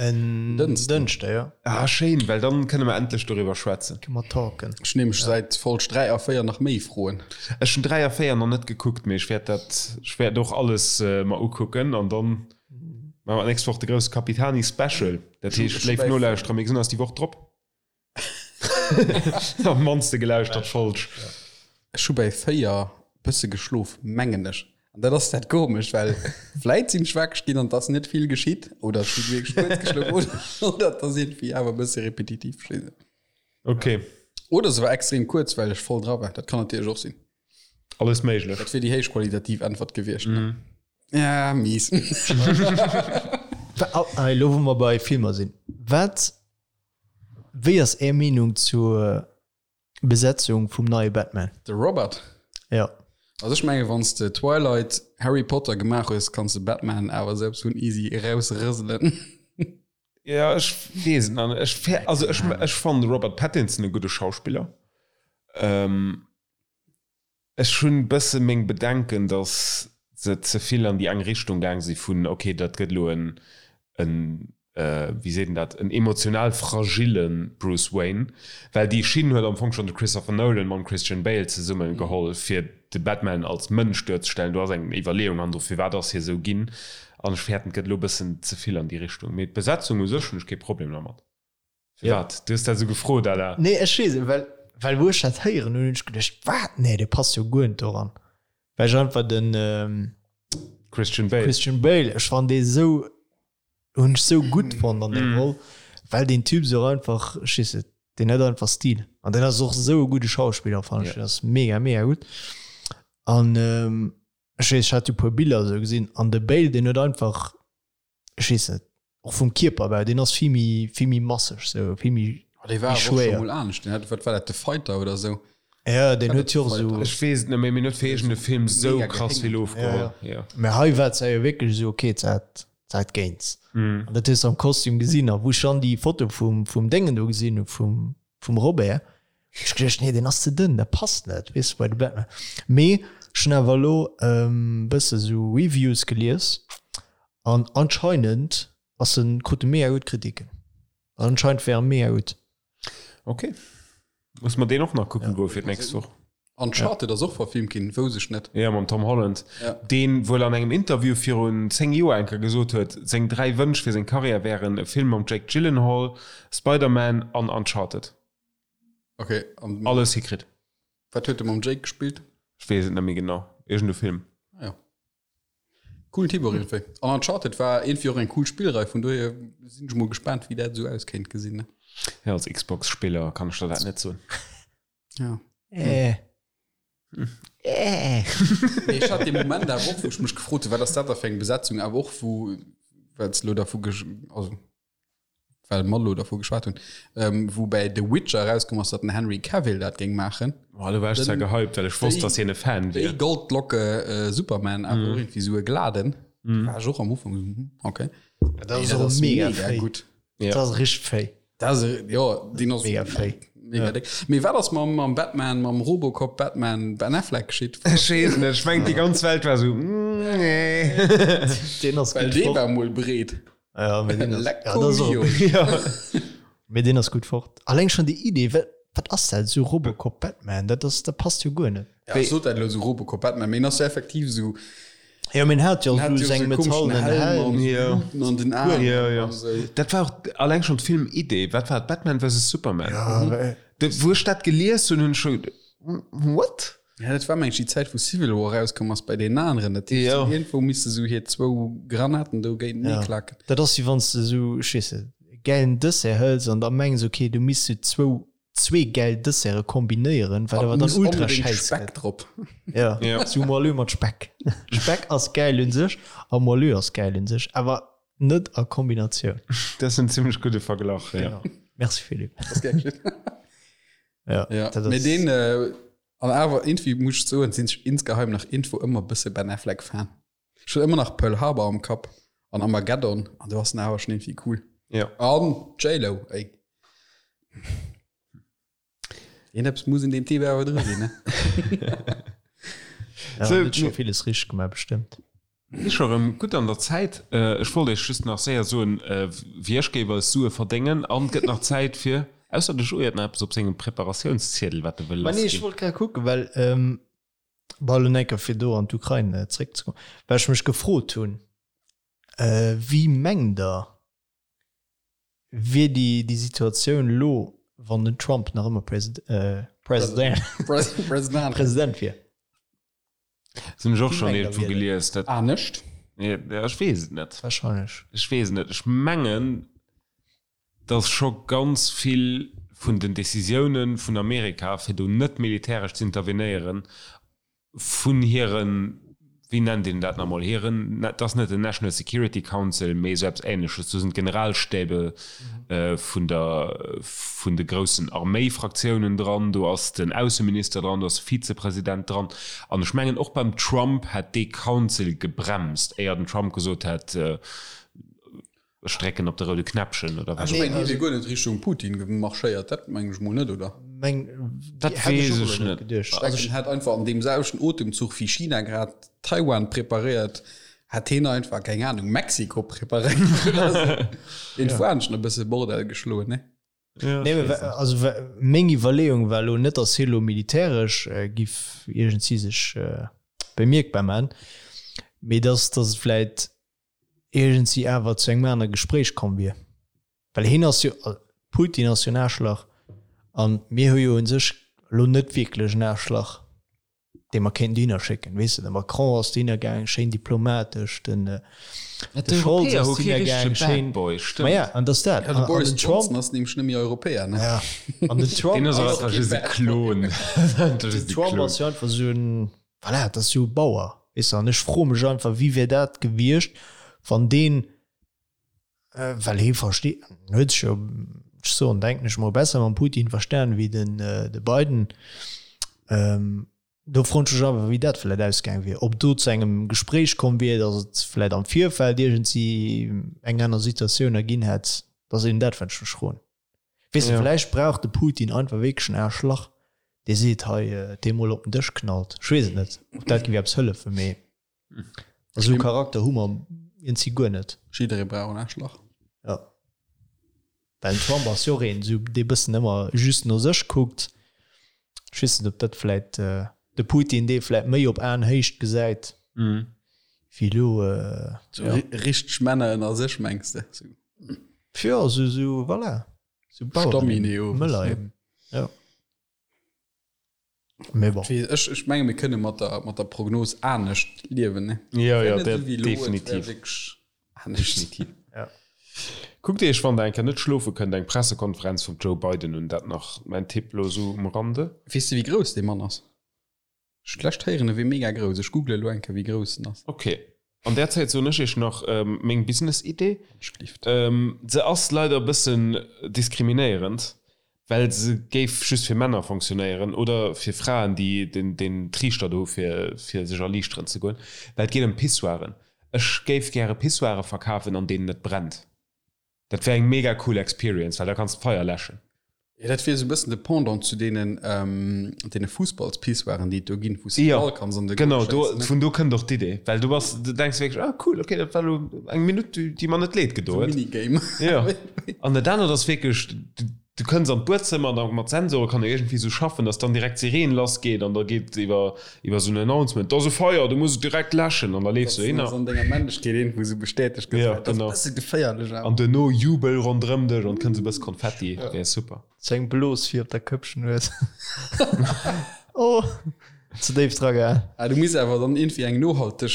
[SPEAKER 3] En Dënschde, jo.
[SPEAKER 2] Ah, schéin, well dann kënne mer endlech doriwwer schwätzen.
[SPEAKER 3] Kënne mer talken.
[SPEAKER 1] Ech hunn nämlech säit Folg 3 a 4 nach méi Froen.
[SPEAKER 2] Ech hunn 3 a 4 nach net gekuckt, mee ech wäert dat, ech wäert och alles mer ukucken an dann maache mer d'nächst Woch de grousse Capitani Special. Dat heescht, léif Nolauschterer, mir gesinn eis déi Woch drop. Am mannste gelauschtert Folg.
[SPEAKER 1] Ech hu bäi 4 bësse geschlof, mengen ech. An dat ass dat Komescht, well vläit sinn ech wakereg ginn an et ass net vill geschitt oder ech hu wierklech kuerz geschlof oder, oder et ass iergendwéi awer e bësse repetitiv. Ech weess net.
[SPEAKER 2] Okay.
[SPEAKER 1] Oder se war extrem kuerz, well ech voll dra war. Dat kann natierlech och sinn.
[SPEAKER 2] Alles méiglech.
[SPEAKER 1] Dat wier déi héichqualitativ Äntwert gewiescht. Mm. Ja, mies.
[SPEAKER 3] Elo wou mer bei Filmer sinn, wat Wéi ass är Meenung zur Besetzung vum neie Batman?
[SPEAKER 1] De Robert?
[SPEAKER 3] Ja.
[SPEAKER 1] Also ech menge wann s de Twilight, Harry Potter gemaach hues, kanns de Batman awer selbst vun easy erausrëselen.
[SPEAKER 2] Ja ech weess et nach net. Ech also ech ech fannen de Robert Pattinson e gudde Schauspiller. Ech hunn bësse meng Bedenken, datt se ze vill an déi eng Richtung gaang si vun, ok, dat gëtt elo en, en, wéi seet een dat, en emotional fragille Bruce Wayne, well déi Schinn huet am Fong schonn de Christopher Nolan mam Christian Bale zesumme geholl, fir de Batman als Mënsch duerzestellen. Do ass eng Iwwerleeung hannendru, firwat ass hie sou ginn, an ech fäerten, et gëtt elo bëssen ze vill an déi Richtung. Mee d'Besetzung u sech hunn ech kee Problem dermat. Firwat? Du hues dat esou gefrot, Alain.
[SPEAKER 3] Nee, ech weess et, well, well wou ech dat héieren hunn, hunn ech geduecht, wat? Nee, dee passt jo guer net doran. Well ech einfach den
[SPEAKER 2] Christian Bale.
[SPEAKER 3] Christian Bale, ech fannen dee sou, hunn ech sou gutt fonnt an där Roll, well deen Typ sou einfach, ech weess net, deen huet einfach Stil. An deen ass och esou e gudde Schauspiller, fannen ech. Deen ass mega, mega gutt. An ech weess, ech hat jo e puer Biller esou gesinn, an de Bale, deen huet einfach, ech weess net, och vum Kierperbau, deen ass vill méi, vill méi masseg, sou vill méi,
[SPEAKER 1] Oh, dee war
[SPEAKER 3] méi
[SPEAKER 1] awer och scho
[SPEAKER 3] schwéier.
[SPEAKER 1] mol anescht. Den hat, wat war dat, The Fighter oder sou?
[SPEAKER 3] Ja, deen huet jo och sou.
[SPEAKER 2] Ech weess et net méi, mee en huet fir iergend e Film sou
[SPEAKER 1] Mega
[SPEAKER 2] krass vill
[SPEAKER 1] gehéngert.
[SPEAKER 2] ofgeholl.
[SPEAKER 3] Ja, ja.
[SPEAKER 2] Ja.
[SPEAKER 3] Mä hei war et jo wierklech esou, okay, et hat, et hat géints. An dat hues de am Kostüm gesinn. A wou ech dann déi Foto vum, vum Déngen do gesinn hu, vum, vum Robert, hunn ech geduecht, nee, deen ass ze dënn, dat passt net, weess de, bei de Batman. Mee ech hunn awer elo e bësse sou Reviews gelies An anscheinend ass en, krut e mega gutt Kritiken. An anscheinend wär e mega gutt.
[SPEAKER 2] Ok. Muss mer deen och nach kucken goen fir d'nächst Woch.
[SPEAKER 1] Uncharted ass och verfilmt ginn, wousst ech net.
[SPEAKER 2] Jo, mam Tom Holland,
[SPEAKER 1] Ja.
[SPEAKER 2] deen wuel an engem Interview virun 10 Joer eng Kéier gesot huet, seng 3 Wënsch fir seng Karriär wären e Film mam Jake Gyllenhaal, Spider-Man an Uncharted.
[SPEAKER 1] Ok, an
[SPEAKER 2] Alles hikritt.
[SPEAKER 1] wat huet e mam Jake gespillt?
[SPEAKER 2] Ech weess et net méi genau. Iergend e Film.
[SPEAKER 1] Ah jo. Coolen Typ och iergendwéi. An Uncharted war iergendwéi och eng cool Spillrei, vun dohier sinn ech mol gespaant wéi dat esou aus kéint gesinn. Ne?
[SPEAKER 2] Ja, als Xbox-Spiller kann ech der dat net soen.
[SPEAKER 1] Ja.
[SPEAKER 3] Äh. Äh.
[SPEAKER 1] Mee ech hat dee Moment awer och, wou ech mech gefrot hunn, wat ass dat da fir eng Besetzung, awer och wou, well s elo dervu gesch-, also well mer elo dervu geschwat hunn, ähm, wou bäi The Witcher erauskomm ass, datt den Henry Cavill dat géing maachen.
[SPEAKER 2] Boah, do war ech zwar gehypt, well ech wosst, datt hien e Fan
[SPEAKER 1] Déi
[SPEAKER 2] wier.
[SPEAKER 1] Goldlocke äh, Superman, awer och irgendwie sou e Gladen. War ech och am Ufank sou, hm, okay.
[SPEAKER 3] Dat ass och mega fréi.
[SPEAKER 1] gutt.
[SPEAKER 3] Dat ass richteg fréi.
[SPEAKER 1] Dat ass, e- jo, deen ass
[SPEAKER 3] Mega fréi.
[SPEAKER 1] Mega déck. Mee wat ass mam, mam Batman, mam Robocop Batman Ben Affleck geschitt?
[SPEAKER 2] Ech weess net, ech mengen déi ganz Welt war sou, mm, nee.
[SPEAKER 3] Deen ass
[SPEAKER 1] Well
[SPEAKER 3] gutt
[SPEAKER 1] dee
[SPEAKER 3] fort.
[SPEAKER 1] war mol breet.
[SPEAKER 3] Ja, mee deen ass,
[SPEAKER 1] Lecco
[SPEAKER 3] ja, dat ass och,
[SPEAKER 1] mio.
[SPEAKER 2] Ja.
[SPEAKER 3] mee deen ass gutt fort. Alleng schon déi Idee, wat, wat ass dat, esou Robocop Batman, dat ass, dat passt jo guer net.
[SPEAKER 1] Ja, ech sot dat elo esou Robocop Batman, mee en ass jo effektiv esou.
[SPEAKER 3] Jo, mee en hat jo
[SPEAKER 1] En hat
[SPEAKER 3] esou
[SPEAKER 1] jo
[SPEAKER 3] seng
[SPEAKER 1] esou komischen
[SPEAKER 3] metallenen
[SPEAKER 1] Helm
[SPEAKER 3] Helm.
[SPEAKER 1] an
[SPEAKER 2] Ja.
[SPEAKER 1] Bluten an den Aen.
[SPEAKER 2] Ja, ja.
[SPEAKER 1] an esou.
[SPEAKER 2] Dat war och alleng schon d'Filmidee. Wat war et? Batman versus Superman.
[SPEAKER 3] Ja, well-
[SPEAKER 2] De, wou ech dat gelies hunn, hunn ech scho, What?
[SPEAKER 1] Ja, dat war meng ech déi Zäit wou Civil War rauskomm ass bei deenen aneren. Dat heescht,
[SPEAKER 2] Jo.
[SPEAKER 1] iergendwou misste sou hir zwou Granaten do géintenee
[SPEAKER 3] Ja.
[SPEAKER 1] klacken.
[SPEAKER 3] Dat ass wéi wann s de esou, ech weess net, e gäilen Dessert hëls an da mengs, okay, du misst sou zwou, zwee gäil Desserte kombinéieren, wat
[SPEAKER 1] An
[SPEAKER 3] awer dann
[SPEAKER 1] muss
[SPEAKER 3] ultra
[SPEAKER 1] onbedéngt
[SPEAKER 3] schäiss
[SPEAKER 1] Speck
[SPEAKER 3] gëtt.
[SPEAKER 1] drop.
[SPEAKER 3] Ja,
[SPEAKER 2] Ja.
[SPEAKER 3] sou Moelleux mat Speck. Speck ass gäil un sech a Moelleux ass gäil un sech, awer net a Kombinatioun.
[SPEAKER 2] Dat ass en zimmlech gudde Verglach, ja.
[SPEAKER 3] Genau. Merci Philippe.
[SPEAKER 1] Das gär geschehen.
[SPEAKER 3] Ja,
[SPEAKER 1] Ja.
[SPEAKER 3] dat
[SPEAKER 1] Mee
[SPEAKER 3] ass,
[SPEAKER 1] deen, äh, an awer irgendwie muss ech soen, sinn ech insgeheim nach irgendwo ëmmer bësse Ben Affleck Fan. Ech hunn ëmmer nach Pearl Harbor am Kapp an Armageddon an do ass en awer schon irgendwie cool.
[SPEAKER 2] Ja.
[SPEAKER 1] An J-Lo, ey. Iergendeppes muss in deem Typ awer dru sinn, ne?
[SPEAKER 3] ja,
[SPEAKER 2] So,
[SPEAKER 3] huet scho villes richteg gemaach, bestëmmt.
[SPEAKER 2] Si scho rëm gutt an der Zäit. Ech wollt Iech just nach séier soen, wéi ech géif eis Sue verdéngen. An et gëtt nach Zäit fir, ausser de Joé huet nach eppes op sengem Preparatiounsziedel, wat e wëll
[SPEAKER 3] Ma nee, ech lassginn. wollt grad kucken, well, bon, elo enker fir do an d'Ukrain zréckzekommen, well ech mech gefrot hunn, Wéi mengt Der, wier déi, déi Situatioun elo, wann den Trump nach ëmmer President, President wier?
[SPEAKER 2] Das hunn ech och schonn iergendwou gelies.
[SPEAKER 1] Dat Anescht?
[SPEAKER 2] Ja, ech weess et net.
[SPEAKER 3] Wahrscheinlech.
[SPEAKER 2] Ech weess et net. Ech mengen, datt scho ganz vill vun den Decisiounen vun Amerika, fir do net militäresch z'intervenéieren, vun hiren, wéi nennt een dat nach emol, hiren, dat ass net den National Security Council, mee esou eppes Ähnleches, do sinn d'Generalstäbe vun der, vun de groussen Arméifraktiounen dran, do ass den Ausseminister dran, do ass de Vizepresident dran. An ech mengen, och beim Trump hätt dee Council gebremst, éier den Trump gesot hätt, ech drécken op de roude Knäppchen oder wat
[SPEAKER 1] och ëmmer. Ech mengen, hie wier guer net Richtung Putin marschéiert, dat mengen ech mol net, oder?
[SPEAKER 2] Dat weess ech net.
[SPEAKER 1] Ech denken, en hätt einfach an deem selwechten Otemzuch wéi China grad Taiwan preparéiert, Hätt heen einfach, keng Ahnung, Mexiko preparéiert oder sou. Een Fuanschen e bësse Bordell geschloen, ne?
[SPEAKER 3] Ja, nee, me, also meng Iwwerleeung war lo net, dass hie lo militäresch äh, giff iergendsi sech äh, bemierkbar man, mee dass, dass et vläit iergendsi awer zu engem anere Gespréich komm wier. Well hien ass jo, Putin ass jo en Aarschlach an mir hu jo un sech lo net wierklech en Aarschlach. dee mer kéinten dohinner schécken. Weess de, de Macron ass dohinner gaang, schéin diplomatesch, den
[SPEAKER 2] de Scholz ass dohinner gaang, schéin.
[SPEAKER 3] Ma ja, an dass dat.
[SPEAKER 1] Ja, de Boris Johnson ass nämlech net méi Europäer, ne?
[SPEAKER 3] Ja, an den Trump.
[SPEAKER 2] Deen ass och einfach just e Klon.
[SPEAKER 3] Den Trump ass jo einfach esou en, voilà, dat ass jo e Bauer, weess de. An ech froe mech einfach, wéi wär dat gewiescht, wann deen, well hie versteet, en huet sech jo, ech soen, denken ech mol, besser mam Putin verstan wéi den de Biden. Do froen ech mech awer, wéi dat vläicht ausgaang wier, ob do zu engem Gespréich komm wier, datt et vläicht am Virfeld iergendsi eng aner Situatioun erginn hätt. Dat ass eben dat, wat ech mech froen. Weess de, vläicht brauch de Putin einfach wierklech en Aarschlach, dee seet, hei, dee mol op den Dësch knallt. Ech weess et net, ob dat géif eppes hëllefen, mee. Esou Charakter hu mer iergendwéi guer net.
[SPEAKER 1] Jidderee brauch en Aarschlach.
[SPEAKER 3] Jo. Well den Trump ass jo och een, esou dee bëssen ëmmer just no sech kuckt. Ech weess net, ob dat vläit de Putin dee vläit méi op Aenhéicht gesäit wéi elo.
[SPEAKER 1] Sou richteg Männer ënner sech, mengs de? Sou.
[SPEAKER 3] Jo, esou, esou, voilà. Sou Baueren eben, Mëller eben, jo.
[SPEAKER 1] Mee bon. Ech, ech menge mir kënne mat der, mat der Prognos anescht liewen, ne?
[SPEAKER 2] Ja, ja, dat definitiv.
[SPEAKER 1] Definitiv.
[SPEAKER 2] Ja. Kuckt Iech, wann der eng Kéier net schlofe kënnt, eng Pressekonferenz vum Joe Biden un. Dat nach mäin Tipp lo sou um Rande.
[SPEAKER 1] Weess de wéi grouss dee Mann ass? Ech hunn d'lescht héieren e wier mega grouss. Ech googele lo eng Kéier wéi grouss en ass.
[SPEAKER 2] Ok. An där Zäit soen ech iech nach meng Business-Idee. Se ass leider e bëssen diskriminéierend, well se géif just fir Männer fonctionnéieren oder fir Fraen, déi den Triichter do hu fir sech erliichteren ze goen, well et geet ëm Pissoiren. Ech géif gäre Pissoire verkafen, an deenen et brennt. Dat wär eng mega cool Experience, well da kanns d'Feier läschen.
[SPEAKER 1] Jo, dat wier esou e bëssen de Pendant zu deenen, deene Fussballspissoiren, déi et do ginn, wou s de de Ball kanns an de
[SPEAKER 2] Goal schéissen. Genau, do, vun do kënnt och d'Idee, well du bass, du denks wierklech, ah cool, okay, dat war elo eng Minutt, déi, déi mer net leed gedo huet.
[SPEAKER 1] Esou Minigame.
[SPEAKER 2] Jo, an dat anert ass wierklech, du, du kënns an d'Buedzëmmer an da mat Sensore kann e iergendwéi esou schaffen, dass dann direkt d'Sireen lassgeet an da geet iwwer, iwwer esou en Announcement, do ass e Feier, du muss et direkt läschen an da leefs du
[SPEAKER 1] hinner. Dass an denger Männlechkeet iergendwou esou bestätegt gëtt.
[SPEAKER 2] Ja, genau.
[SPEAKER 1] Dat ass e bësse geféierlech
[SPEAKER 2] awer. An duerno Jubel ronderëm dech an et kënnt esou e bësse Konfetti, wär super.
[SPEAKER 3] Sou eng Blos fir op der Këppchen hues. Oh, ze déif dra gaang.
[SPEAKER 1] Ah, du muss awer dann iergendwéi eng nohalteg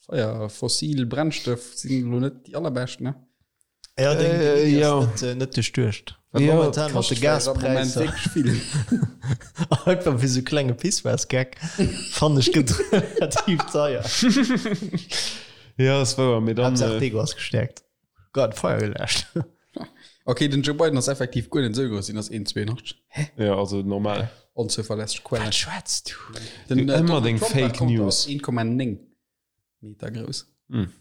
[SPEAKER 1] Feier, fossil Brennstëff sinn elo net déi allerbescht, ne?
[SPEAKER 3] Ja, deng äh, Idee ja. net, äh, net duerchduecht.
[SPEAKER 2] Ja,
[SPEAKER 3] momentan mat de Gaspräisser. Einfach fir sou klenge Pissoirsgeck fannen ech gëtt relativ teuer.
[SPEAKER 2] Ja, ass wouer, mee dann.
[SPEAKER 3] Haaptsaach äh, d'Ego ass gestäerkt. Grad Feier geläscht.
[SPEAKER 1] Okay, den Joe Biden ass effektiv guer net esou grouss, hien ass 1,82.
[SPEAKER 2] Hä? Ja, also normal.
[SPEAKER 1] Onzuverlässeg Quelle.
[SPEAKER 3] Wat schwätz du?
[SPEAKER 1] Den,
[SPEAKER 2] Du,
[SPEAKER 1] äh,
[SPEAKER 2] ëmmer
[SPEAKER 1] Donald
[SPEAKER 2] deng
[SPEAKER 1] Trump,
[SPEAKER 2] Fake
[SPEAKER 1] wat kommt,
[SPEAKER 2] News.
[SPEAKER 1] ass 1,9 Meter grouss.
[SPEAKER 2] Hm.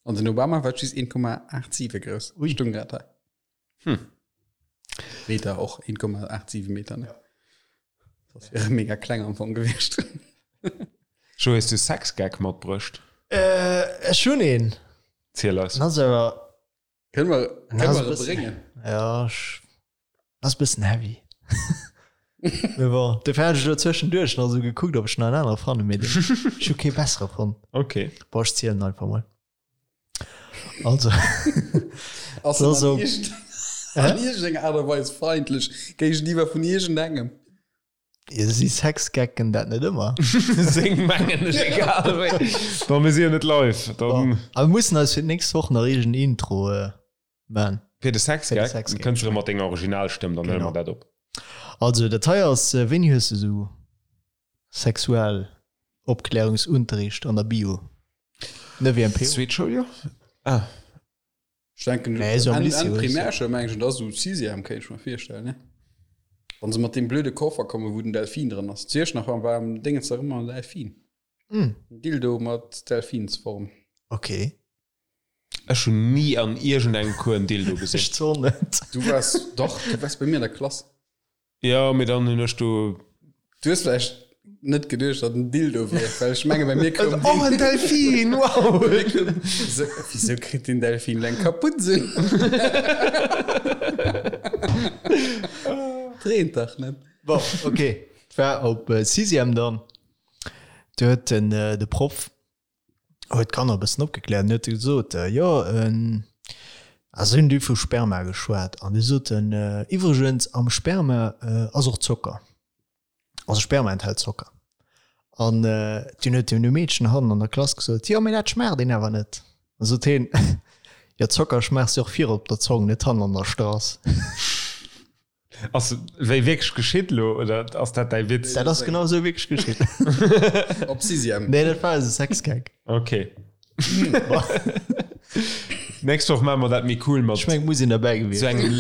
[SPEAKER 1] An den Obama war just 1,87 grouss.
[SPEAKER 3] Ui.
[SPEAKER 1] Stung grad hei.
[SPEAKER 2] Hm.
[SPEAKER 1] Meter och 1,87 Meter. Ne? Das wäre mega kleng am Fong gewiescht.
[SPEAKER 2] Jo, hues du Sexgag matbruecht?
[SPEAKER 3] Ech hunn een.
[SPEAKER 2] Ziel eis.
[SPEAKER 3] En ass awer.
[SPEAKER 1] Kënne mer, kënne mer e bréngen?
[SPEAKER 3] Ja, ech, ass e bëssen heavy. Mee bon, dofir hat ech elo zwëschenduerch nach esou gekuckt, ob ech nach en anere fannen, mee den, ech hu kee bessere fonnt.
[SPEAKER 2] Ok.
[SPEAKER 3] Bon, ech zielen einfach mol. Also,
[SPEAKER 1] Ass
[SPEAKER 3] Das
[SPEAKER 1] en
[SPEAKER 3] so-
[SPEAKER 1] an iergend- an iergendenger Aart a Weis feindlech géigeniwwer vun iergendengem?
[SPEAKER 3] Jo, si Sexgecken dat net ëmmer?
[SPEAKER 2] Seng mengen ech, egal wéi. Bon, mir si jo net live, dann.
[SPEAKER 3] Bon, a mir mussen eis fir d'nächst Woch nach iergend Intro man.
[SPEAKER 2] Fir de Sexgag?
[SPEAKER 3] Fir de Sexgag.
[SPEAKER 2] Kënns de erëm mat denger Originalstëmm, dann huele mer dat op.
[SPEAKER 3] Also, dat hei ass, wéini hues de sou Sexualopklärungsunterricht an der Bio? Ne WMPO?
[SPEAKER 2] Zweet Schouljoer? Ah.
[SPEAKER 1] Ech denken,
[SPEAKER 3] Nee, so am
[SPEAKER 1] Enn,
[SPEAKER 3] Lycée
[SPEAKER 1] Enn
[SPEAKER 3] oder so.
[SPEAKER 1] Primärschoul mengen ech, dat ass esou Sixième, kéint ech mer virstellen, ne? Wann se mat deem blöde Koffer kommen, wou den Delfin dran ass. Zu Iechternach war am Dingens nach ëmmer en Delfin.
[SPEAKER 3] Mm.
[SPEAKER 1] En Dildo mat Delfinsform.
[SPEAKER 3] Okay.
[SPEAKER 2] Ech hunn ni an iergendengem Cours en Dildo gesinn.
[SPEAKER 3] Ech zwar net.
[SPEAKER 1] Du waars, dach, du waars bei mir an der Klass.
[SPEAKER 2] Jo, mee dann hunn ech do.
[SPEAKER 1] Du hues vläicht net geduecht, datt en Dildo wier, well ech menge bei mir koum
[SPEAKER 2] Oh, en Delfin, wow!
[SPEAKER 1] Wieso, wieso kritt den Delfin eng Kaputz un? Dreent dach net.
[SPEAKER 3] Bon, okay. Et war op Sixième dann. Do huet den, de Proff huet d'Kanner e bëssen opgekläert an huet gesot, jo, a se hunn du vu Sperma geschwat an du sot en, iwwregens am Sperma ass och Zocker, also Sperma enthält Zocker. An dunn huet en e Meedchen hannen an der Klass gesot, jo, mee dat schmaacht een awer net. An sot heen, jo, Zocker schmaachs de och vir op der Zong, net hannen an der Strass.
[SPEAKER 2] Ass wéi wierklech geschitt lo oder ass dat däi Witz?
[SPEAKER 3] Dat ass genau esou wierklech geschitt.
[SPEAKER 1] Op Sixième.
[SPEAKER 3] Nee, dat war eise Sexgag.
[SPEAKER 2] Okay. Nächst Woch maache mer dat méi cool mat.
[SPEAKER 3] Ech meng, muss een derbäi gewiescht
[SPEAKER 2] sou engem.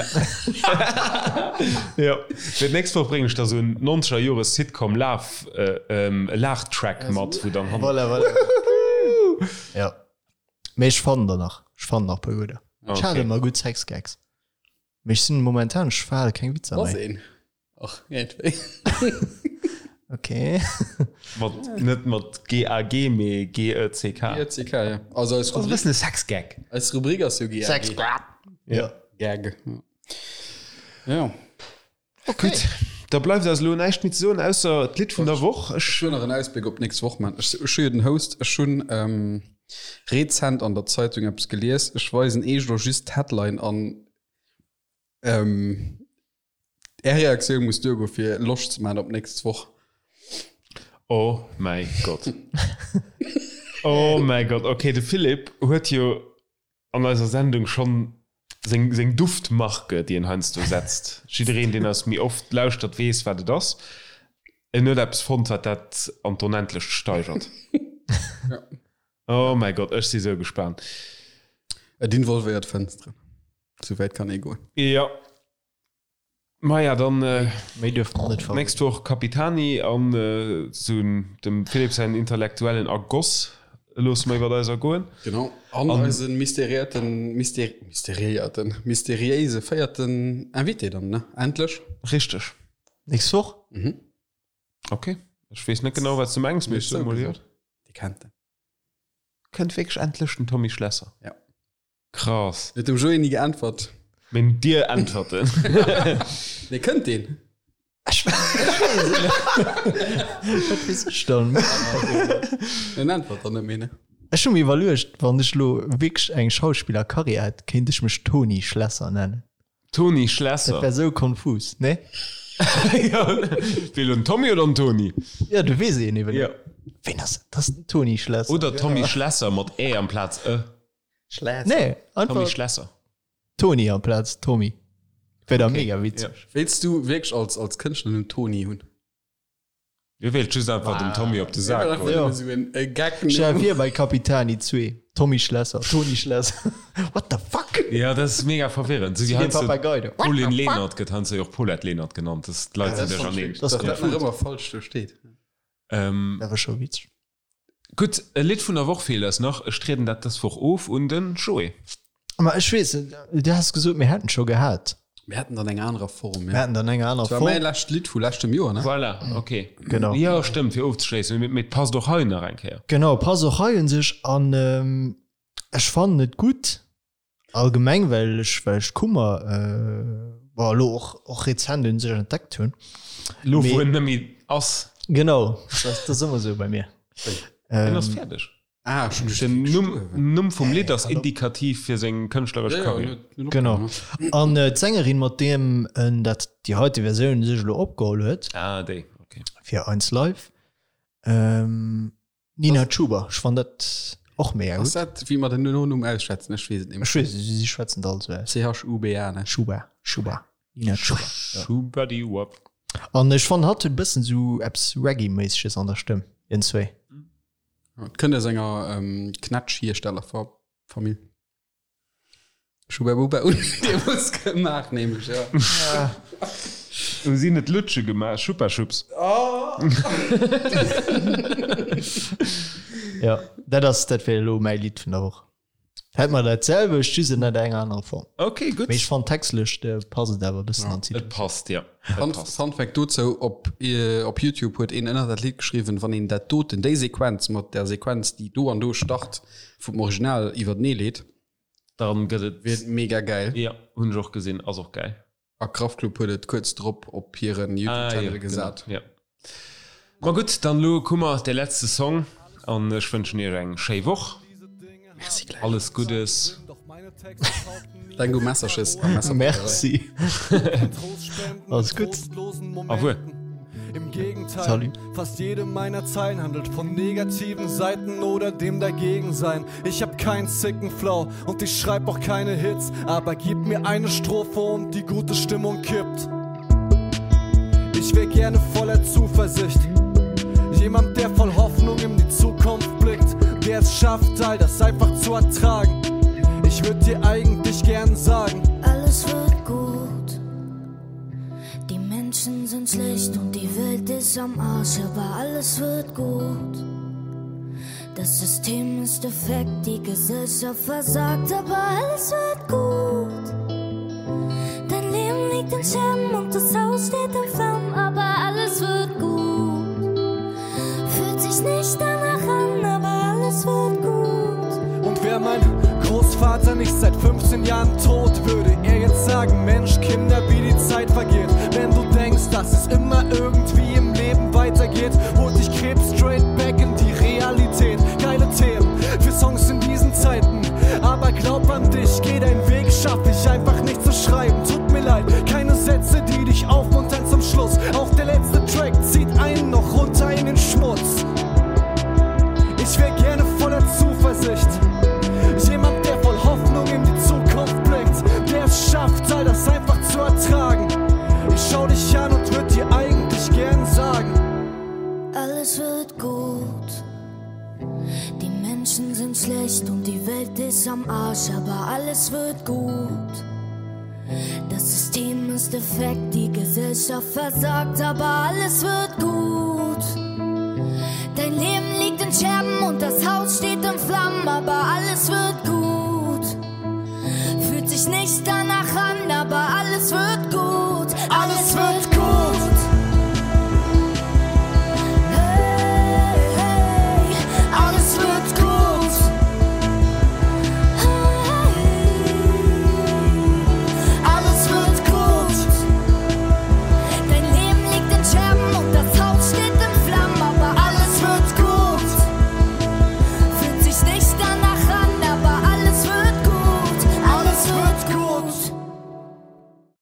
[SPEAKER 2] Jo, fir d'nächst Woch bréngen ech der sou en 90er Jore Sitcom Laugh, e Laachtrack mat, wou dann hannen.
[SPEAKER 3] Voilà, voilà. Ja. Mee ech fannen der nach. Ech fannen nach e puer gudder. Ech hat ëmmer gutt Sexgags. Mee ech sinn momentan, ech verhale keng Witzer
[SPEAKER 1] Ass
[SPEAKER 3] méi.
[SPEAKER 1] een. Och iergendwéi.
[SPEAKER 3] Okay.
[SPEAKER 2] Mat, net mat GAG, mee GECK.
[SPEAKER 1] GECK, ja. Also eis
[SPEAKER 2] Ass e
[SPEAKER 1] Rubrik,
[SPEAKER 2] bëssen e Sexgag.
[SPEAKER 1] eis Rubrik ass jo GAG.
[SPEAKER 3] Sexgag.
[SPEAKER 2] Ja.
[SPEAKER 1] Gag. Ja.
[SPEAKER 3] Okay.
[SPEAKER 2] Gutt, da bleift eis elo näischt méi ze soen, ausser d'Lidd vun der Woch. Ech.
[SPEAKER 1] Ech hunn nach en Ausbléck op d'nächst Woch, man. Ech, ech hu jo den Host. Ech hunn ähm, rezent an der Zeitung eppes gelies. Ech weisen eech elo just d'Headline an ähm, Är Reaktioun muss duergo fir Loscht ze man op d'nächst Woch.
[SPEAKER 2] Oh mäi Gott. Oh mäi Gott. Okay, de Philippe huet jo an eiser Sendung schonn seng, seng Duftmarke, déi en heiansdo setzt. Jiddereen, deen eis méi oft lauschtert, weess, wat et ass. En huet eppes fonnt, wat dat an d'Onendlecht steigert.
[SPEAKER 1] Ja.
[SPEAKER 2] Oh mäi Gott, ech si sou gespaant.
[SPEAKER 1] Et involvéiert Fënsteren. Souwäit kann ee goen.
[SPEAKER 2] Jo. Maja, dann
[SPEAKER 3] Méi duerf mer net verroden.
[SPEAKER 2] nächst Woch Capitani an sou dem Philippe säin intellektuellen Ergoss loosse mer iwwert eis ergoen.
[SPEAKER 1] Genau. An eise mysteriéierten, myster, mysteriéierten, mysteriéise véierten Invité dann, ne? Endlech.
[SPEAKER 2] Richteg.
[SPEAKER 3] Nächst Woch?
[SPEAKER 1] Mhm.
[SPEAKER 2] Ok. Ech weess net genau, wat s du mengs, mee ech soe mol jo.
[SPEAKER 1] Dir kennt en.
[SPEAKER 2] Kënnt wierklech endlech den Tommy Schlesser?
[SPEAKER 1] Ja.
[SPEAKER 2] Krass.
[SPEAKER 1] Huet dem Joé ni geäntwert.
[SPEAKER 2] Meng dir äntwerten.
[SPEAKER 1] Nee, kënnt deen?
[SPEAKER 3] Ech weess et net. Wat weess ech dann?
[SPEAKER 1] En äntwert dann net méi, ne?
[SPEAKER 3] Ech hu mir iwwerluecht, wann ech elo wierklech eng Schauspillerkarriär hätt, kéint ech mech Toni Schlesser nennen.
[SPEAKER 2] Toni Schlesser.
[SPEAKER 3] Dat wär sou konfus, ne?
[SPEAKER 2] Ja, wéi elo den Tommy oder den Toni?
[SPEAKER 3] Ja, du weess een eben.
[SPEAKER 2] Ja.
[SPEAKER 3] Ween ass dat? Dat ass den Toni Schlesser.
[SPEAKER 2] Oder Tommy Schlesser mat ä amplaz e.
[SPEAKER 1] Schlesser.
[SPEAKER 3] Nee,
[SPEAKER 2] Tommy
[SPEAKER 3] einfach
[SPEAKER 2] Schlesser.
[SPEAKER 3] Toni amplaz Tommy. Wär da mega witzeg.
[SPEAKER 1] Wéilts du wierklech als, als Kënschtlernumm Toni hunn?
[SPEAKER 2] Dir wéilt just einfach dem Tommy op de Sak goen.
[SPEAKER 3] Ja.
[SPEAKER 1] Esou en e Gag.
[SPEAKER 3] Stell dir vir bei Capitani 2, Tommy Schlesser, Toni Schlesser. What the fuck?
[SPEAKER 2] Ja, dat ass mega verwirrend. Sou wéi
[SPEAKER 3] Den
[SPEAKER 2] heiansdo
[SPEAKER 3] Papagei do.
[SPEAKER 2] Pauline Lenert gëtt heiansdo jo och Paulette Lenert genannt. Das, d'Leit sinn duercherneen.
[SPEAKER 3] Das
[SPEAKER 1] Dass dat
[SPEAKER 3] konfus.
[SPEAKER 1] nach ëmmer falsch do steet.
[SPEAKER 2] Ähm,
[SPEAKER 3] Dat war scho witzeg.
[SPEAKER 2] Gutt, e Lidd vun der Woch feelt eis nach. Ech trieden dat dës Woch of un den Joé.
[SPEAKER 3] Ma ech weess, du has gesot, mir hätten scho gehat.
[SPEAKER 1] Mir haten dann eng anerer Form.
[SPEAKER 3] Mir haten dann eng aner
[SPEAKER 1] Form. Dat war mäi lescht Lidd vu leschtem Joer, ne?
[SPEAKER 2] Voilà, okay.
[SPEAKER 3] Genau.
[SPEAKER 2] Jo, stëmmt, fir ofzeschléissen. Mee et passt och hei nach eng Kéier.
[SPEAKER 3] Genau, passt och hei un sech. An ech fannen et gutt allgemeng, well ech, well ech Kummer, bon, elo och, och rezent un sech entdeckt hunn.
[SPEAKER 2] Elo, wou en net méi ass.
[SPEAKER 3] Genau, dat ass ëmmer esou bei mir.
[SPEAKER 2] En ass fäerdeg.
[SPEAKER 1] Ah, schon
[SPEAKER 2] Den Numm, Numm vum Lidd ass indikativ fir seng kënschtleresch Karriär.
[SPEAKER 3] Genau. An d'Sängerin, mat deem en dat déi heite Versioun sech elo opgeholl huet.
[SPEAKER 2] Ah, déi, okay.
[SPEAKER 3] Fir Eins Live. Ähm, Nina Chuba. Ech fann dat och mega gutt.
[SPEAKER 1] Ass dat, wéi mer den Nonumm ausschwätzen? Ech weess et
[SPEAKER 3] net méi. Ech weess et, si schwätzen et all esou aus.
[SPEAKER 1] C-H-U-B-A, ne?
[SPEAKER 3] Chuba, Chuba. Nina Chuba.
[SPEAKER 2] Schubadiwupp.
[SPEAKER 3] An ech fann, hatt huet e bëssen esou eppes Reggae-méisseges an der Stëmm, iergendzwéi.
[SPEAKER 1] Et kënnt aus enger Knätschhierstellerfamill. Schubabuba hunn deemools gemaach nämlech,
[SPEAKER 2] jo. Hu si net Lutsche gemaach? Schuppa-Schupps.
[SPEAKER 3] Jo, dat ass, dat wär elo mäi Lidd vun der Woch. Hätt mer dat selwecht, just ënnert enger anerer Form.
[SPEAKER 2] Ok, gutt.
[SPEAKER 3] Mee ech fannen textlech passt et awer e bëssen an
[SPEAKER 2] d'Situatioun. Et passt, jo.
[SPEAKER 1] Fun, Fun Fact dozou, op, op Youtube huet een ënner dat Lidd geschriwwen, wann een dat doten, déi Sequenz mat der Sequenz, déi do an do start, vum Original iwwertenee leet,
[SPEAKER 2] Dann gëtt et.
[SPEAKER 1] Wier et mega gäil.
[SPEAKER 2] Jo, hunn ech och gesinn, ass och gäil.
[SPEAKER 1] A Kraftklub huet et kuerz drop op hiren Youtube-Channel gesat.
[SPEAKER 2] Ah, jo, genau, jo. Ma gutt, dann elo Kummer, dee letzte Song an ech wënschen iech eng schéi Woch.
[SPEAKER 1] Merci gläichfalls.
[SPEAKER 2] Alles Guddes.
[SPEAKER 1] Denk u Messerches a Messerpapierei.
[SPEAKER 3] Merci. Alles gutt.
[SPEAKER 2] Au revoir.
[SPEAKER 4] Im Gegenteil,
[SPEAKER 3] Salut.
[SPEAKER 4] fast jede meiner Zeilen handelt von negativen Seiten oder dem Dagegensein. Ich hab keinen sicken Flow und ich schreib auch keine Hits, aber gib mir eine Strophe und die gute Stimmung kippt. Ich wär gerne voller Zuversicht. Jemand, der voll Hoffnung in die Zukunft blickt, der es schafft, all das einfach zu ertragen. Ich würd dir eigentlich gern sagen.
[SPEAKER 5] Alles wird gut. Die Menschen sind schlecht und die Welt ist am Arsch, aber alles wird gut. Das System ist defekt, die Gesellschaft versagt, aber alles wird gut. Dein Leben liegt in Scherben und das Haus steht in Flammen, aber alles wird gut. Fühlt sich nicht danach an, aber alles wird gut.
[SPEAKER 4] Und wär mein Großvater nicht seit 15 Jahren tot, würde er jetzt sagen, Mensch, Kinder, wie die Zeit vergeht. Wenn du denkst, dass es immer irgendwie im Leben weitergeht, holt dich Krebs straight back in die Realität. Geile Themen für Songs in diesen Zeiten. Aber glaub an dich, geh deinen Weg, schaff ich einfach nicht zu schreiben. Tut mir leid, keine Sätze, die dich aufmuntern zum Schluss. Auch der letzte Track zieht einen noch runter in den Schmutz. Ich wär gerne voller Zuversicht. Jemand, der voll Hoffnung in die Zukunft blickt, der es schafft, all das einfach zu ertragen. Ich schau dich an und würd dir eigentlich gern sagen.
[SPEAKER 5] Alles wird gut. Die Menschen sind schlecht und die Welt ist am Arsch, aber alles wird gut. Das System ist defekt, die Gesellschaft versagt, aber alles wird gut. Dein Leben liegt in Scherben und das Haus steht in Flammen, aber alles wird gut. Fühlt sich nicht danach.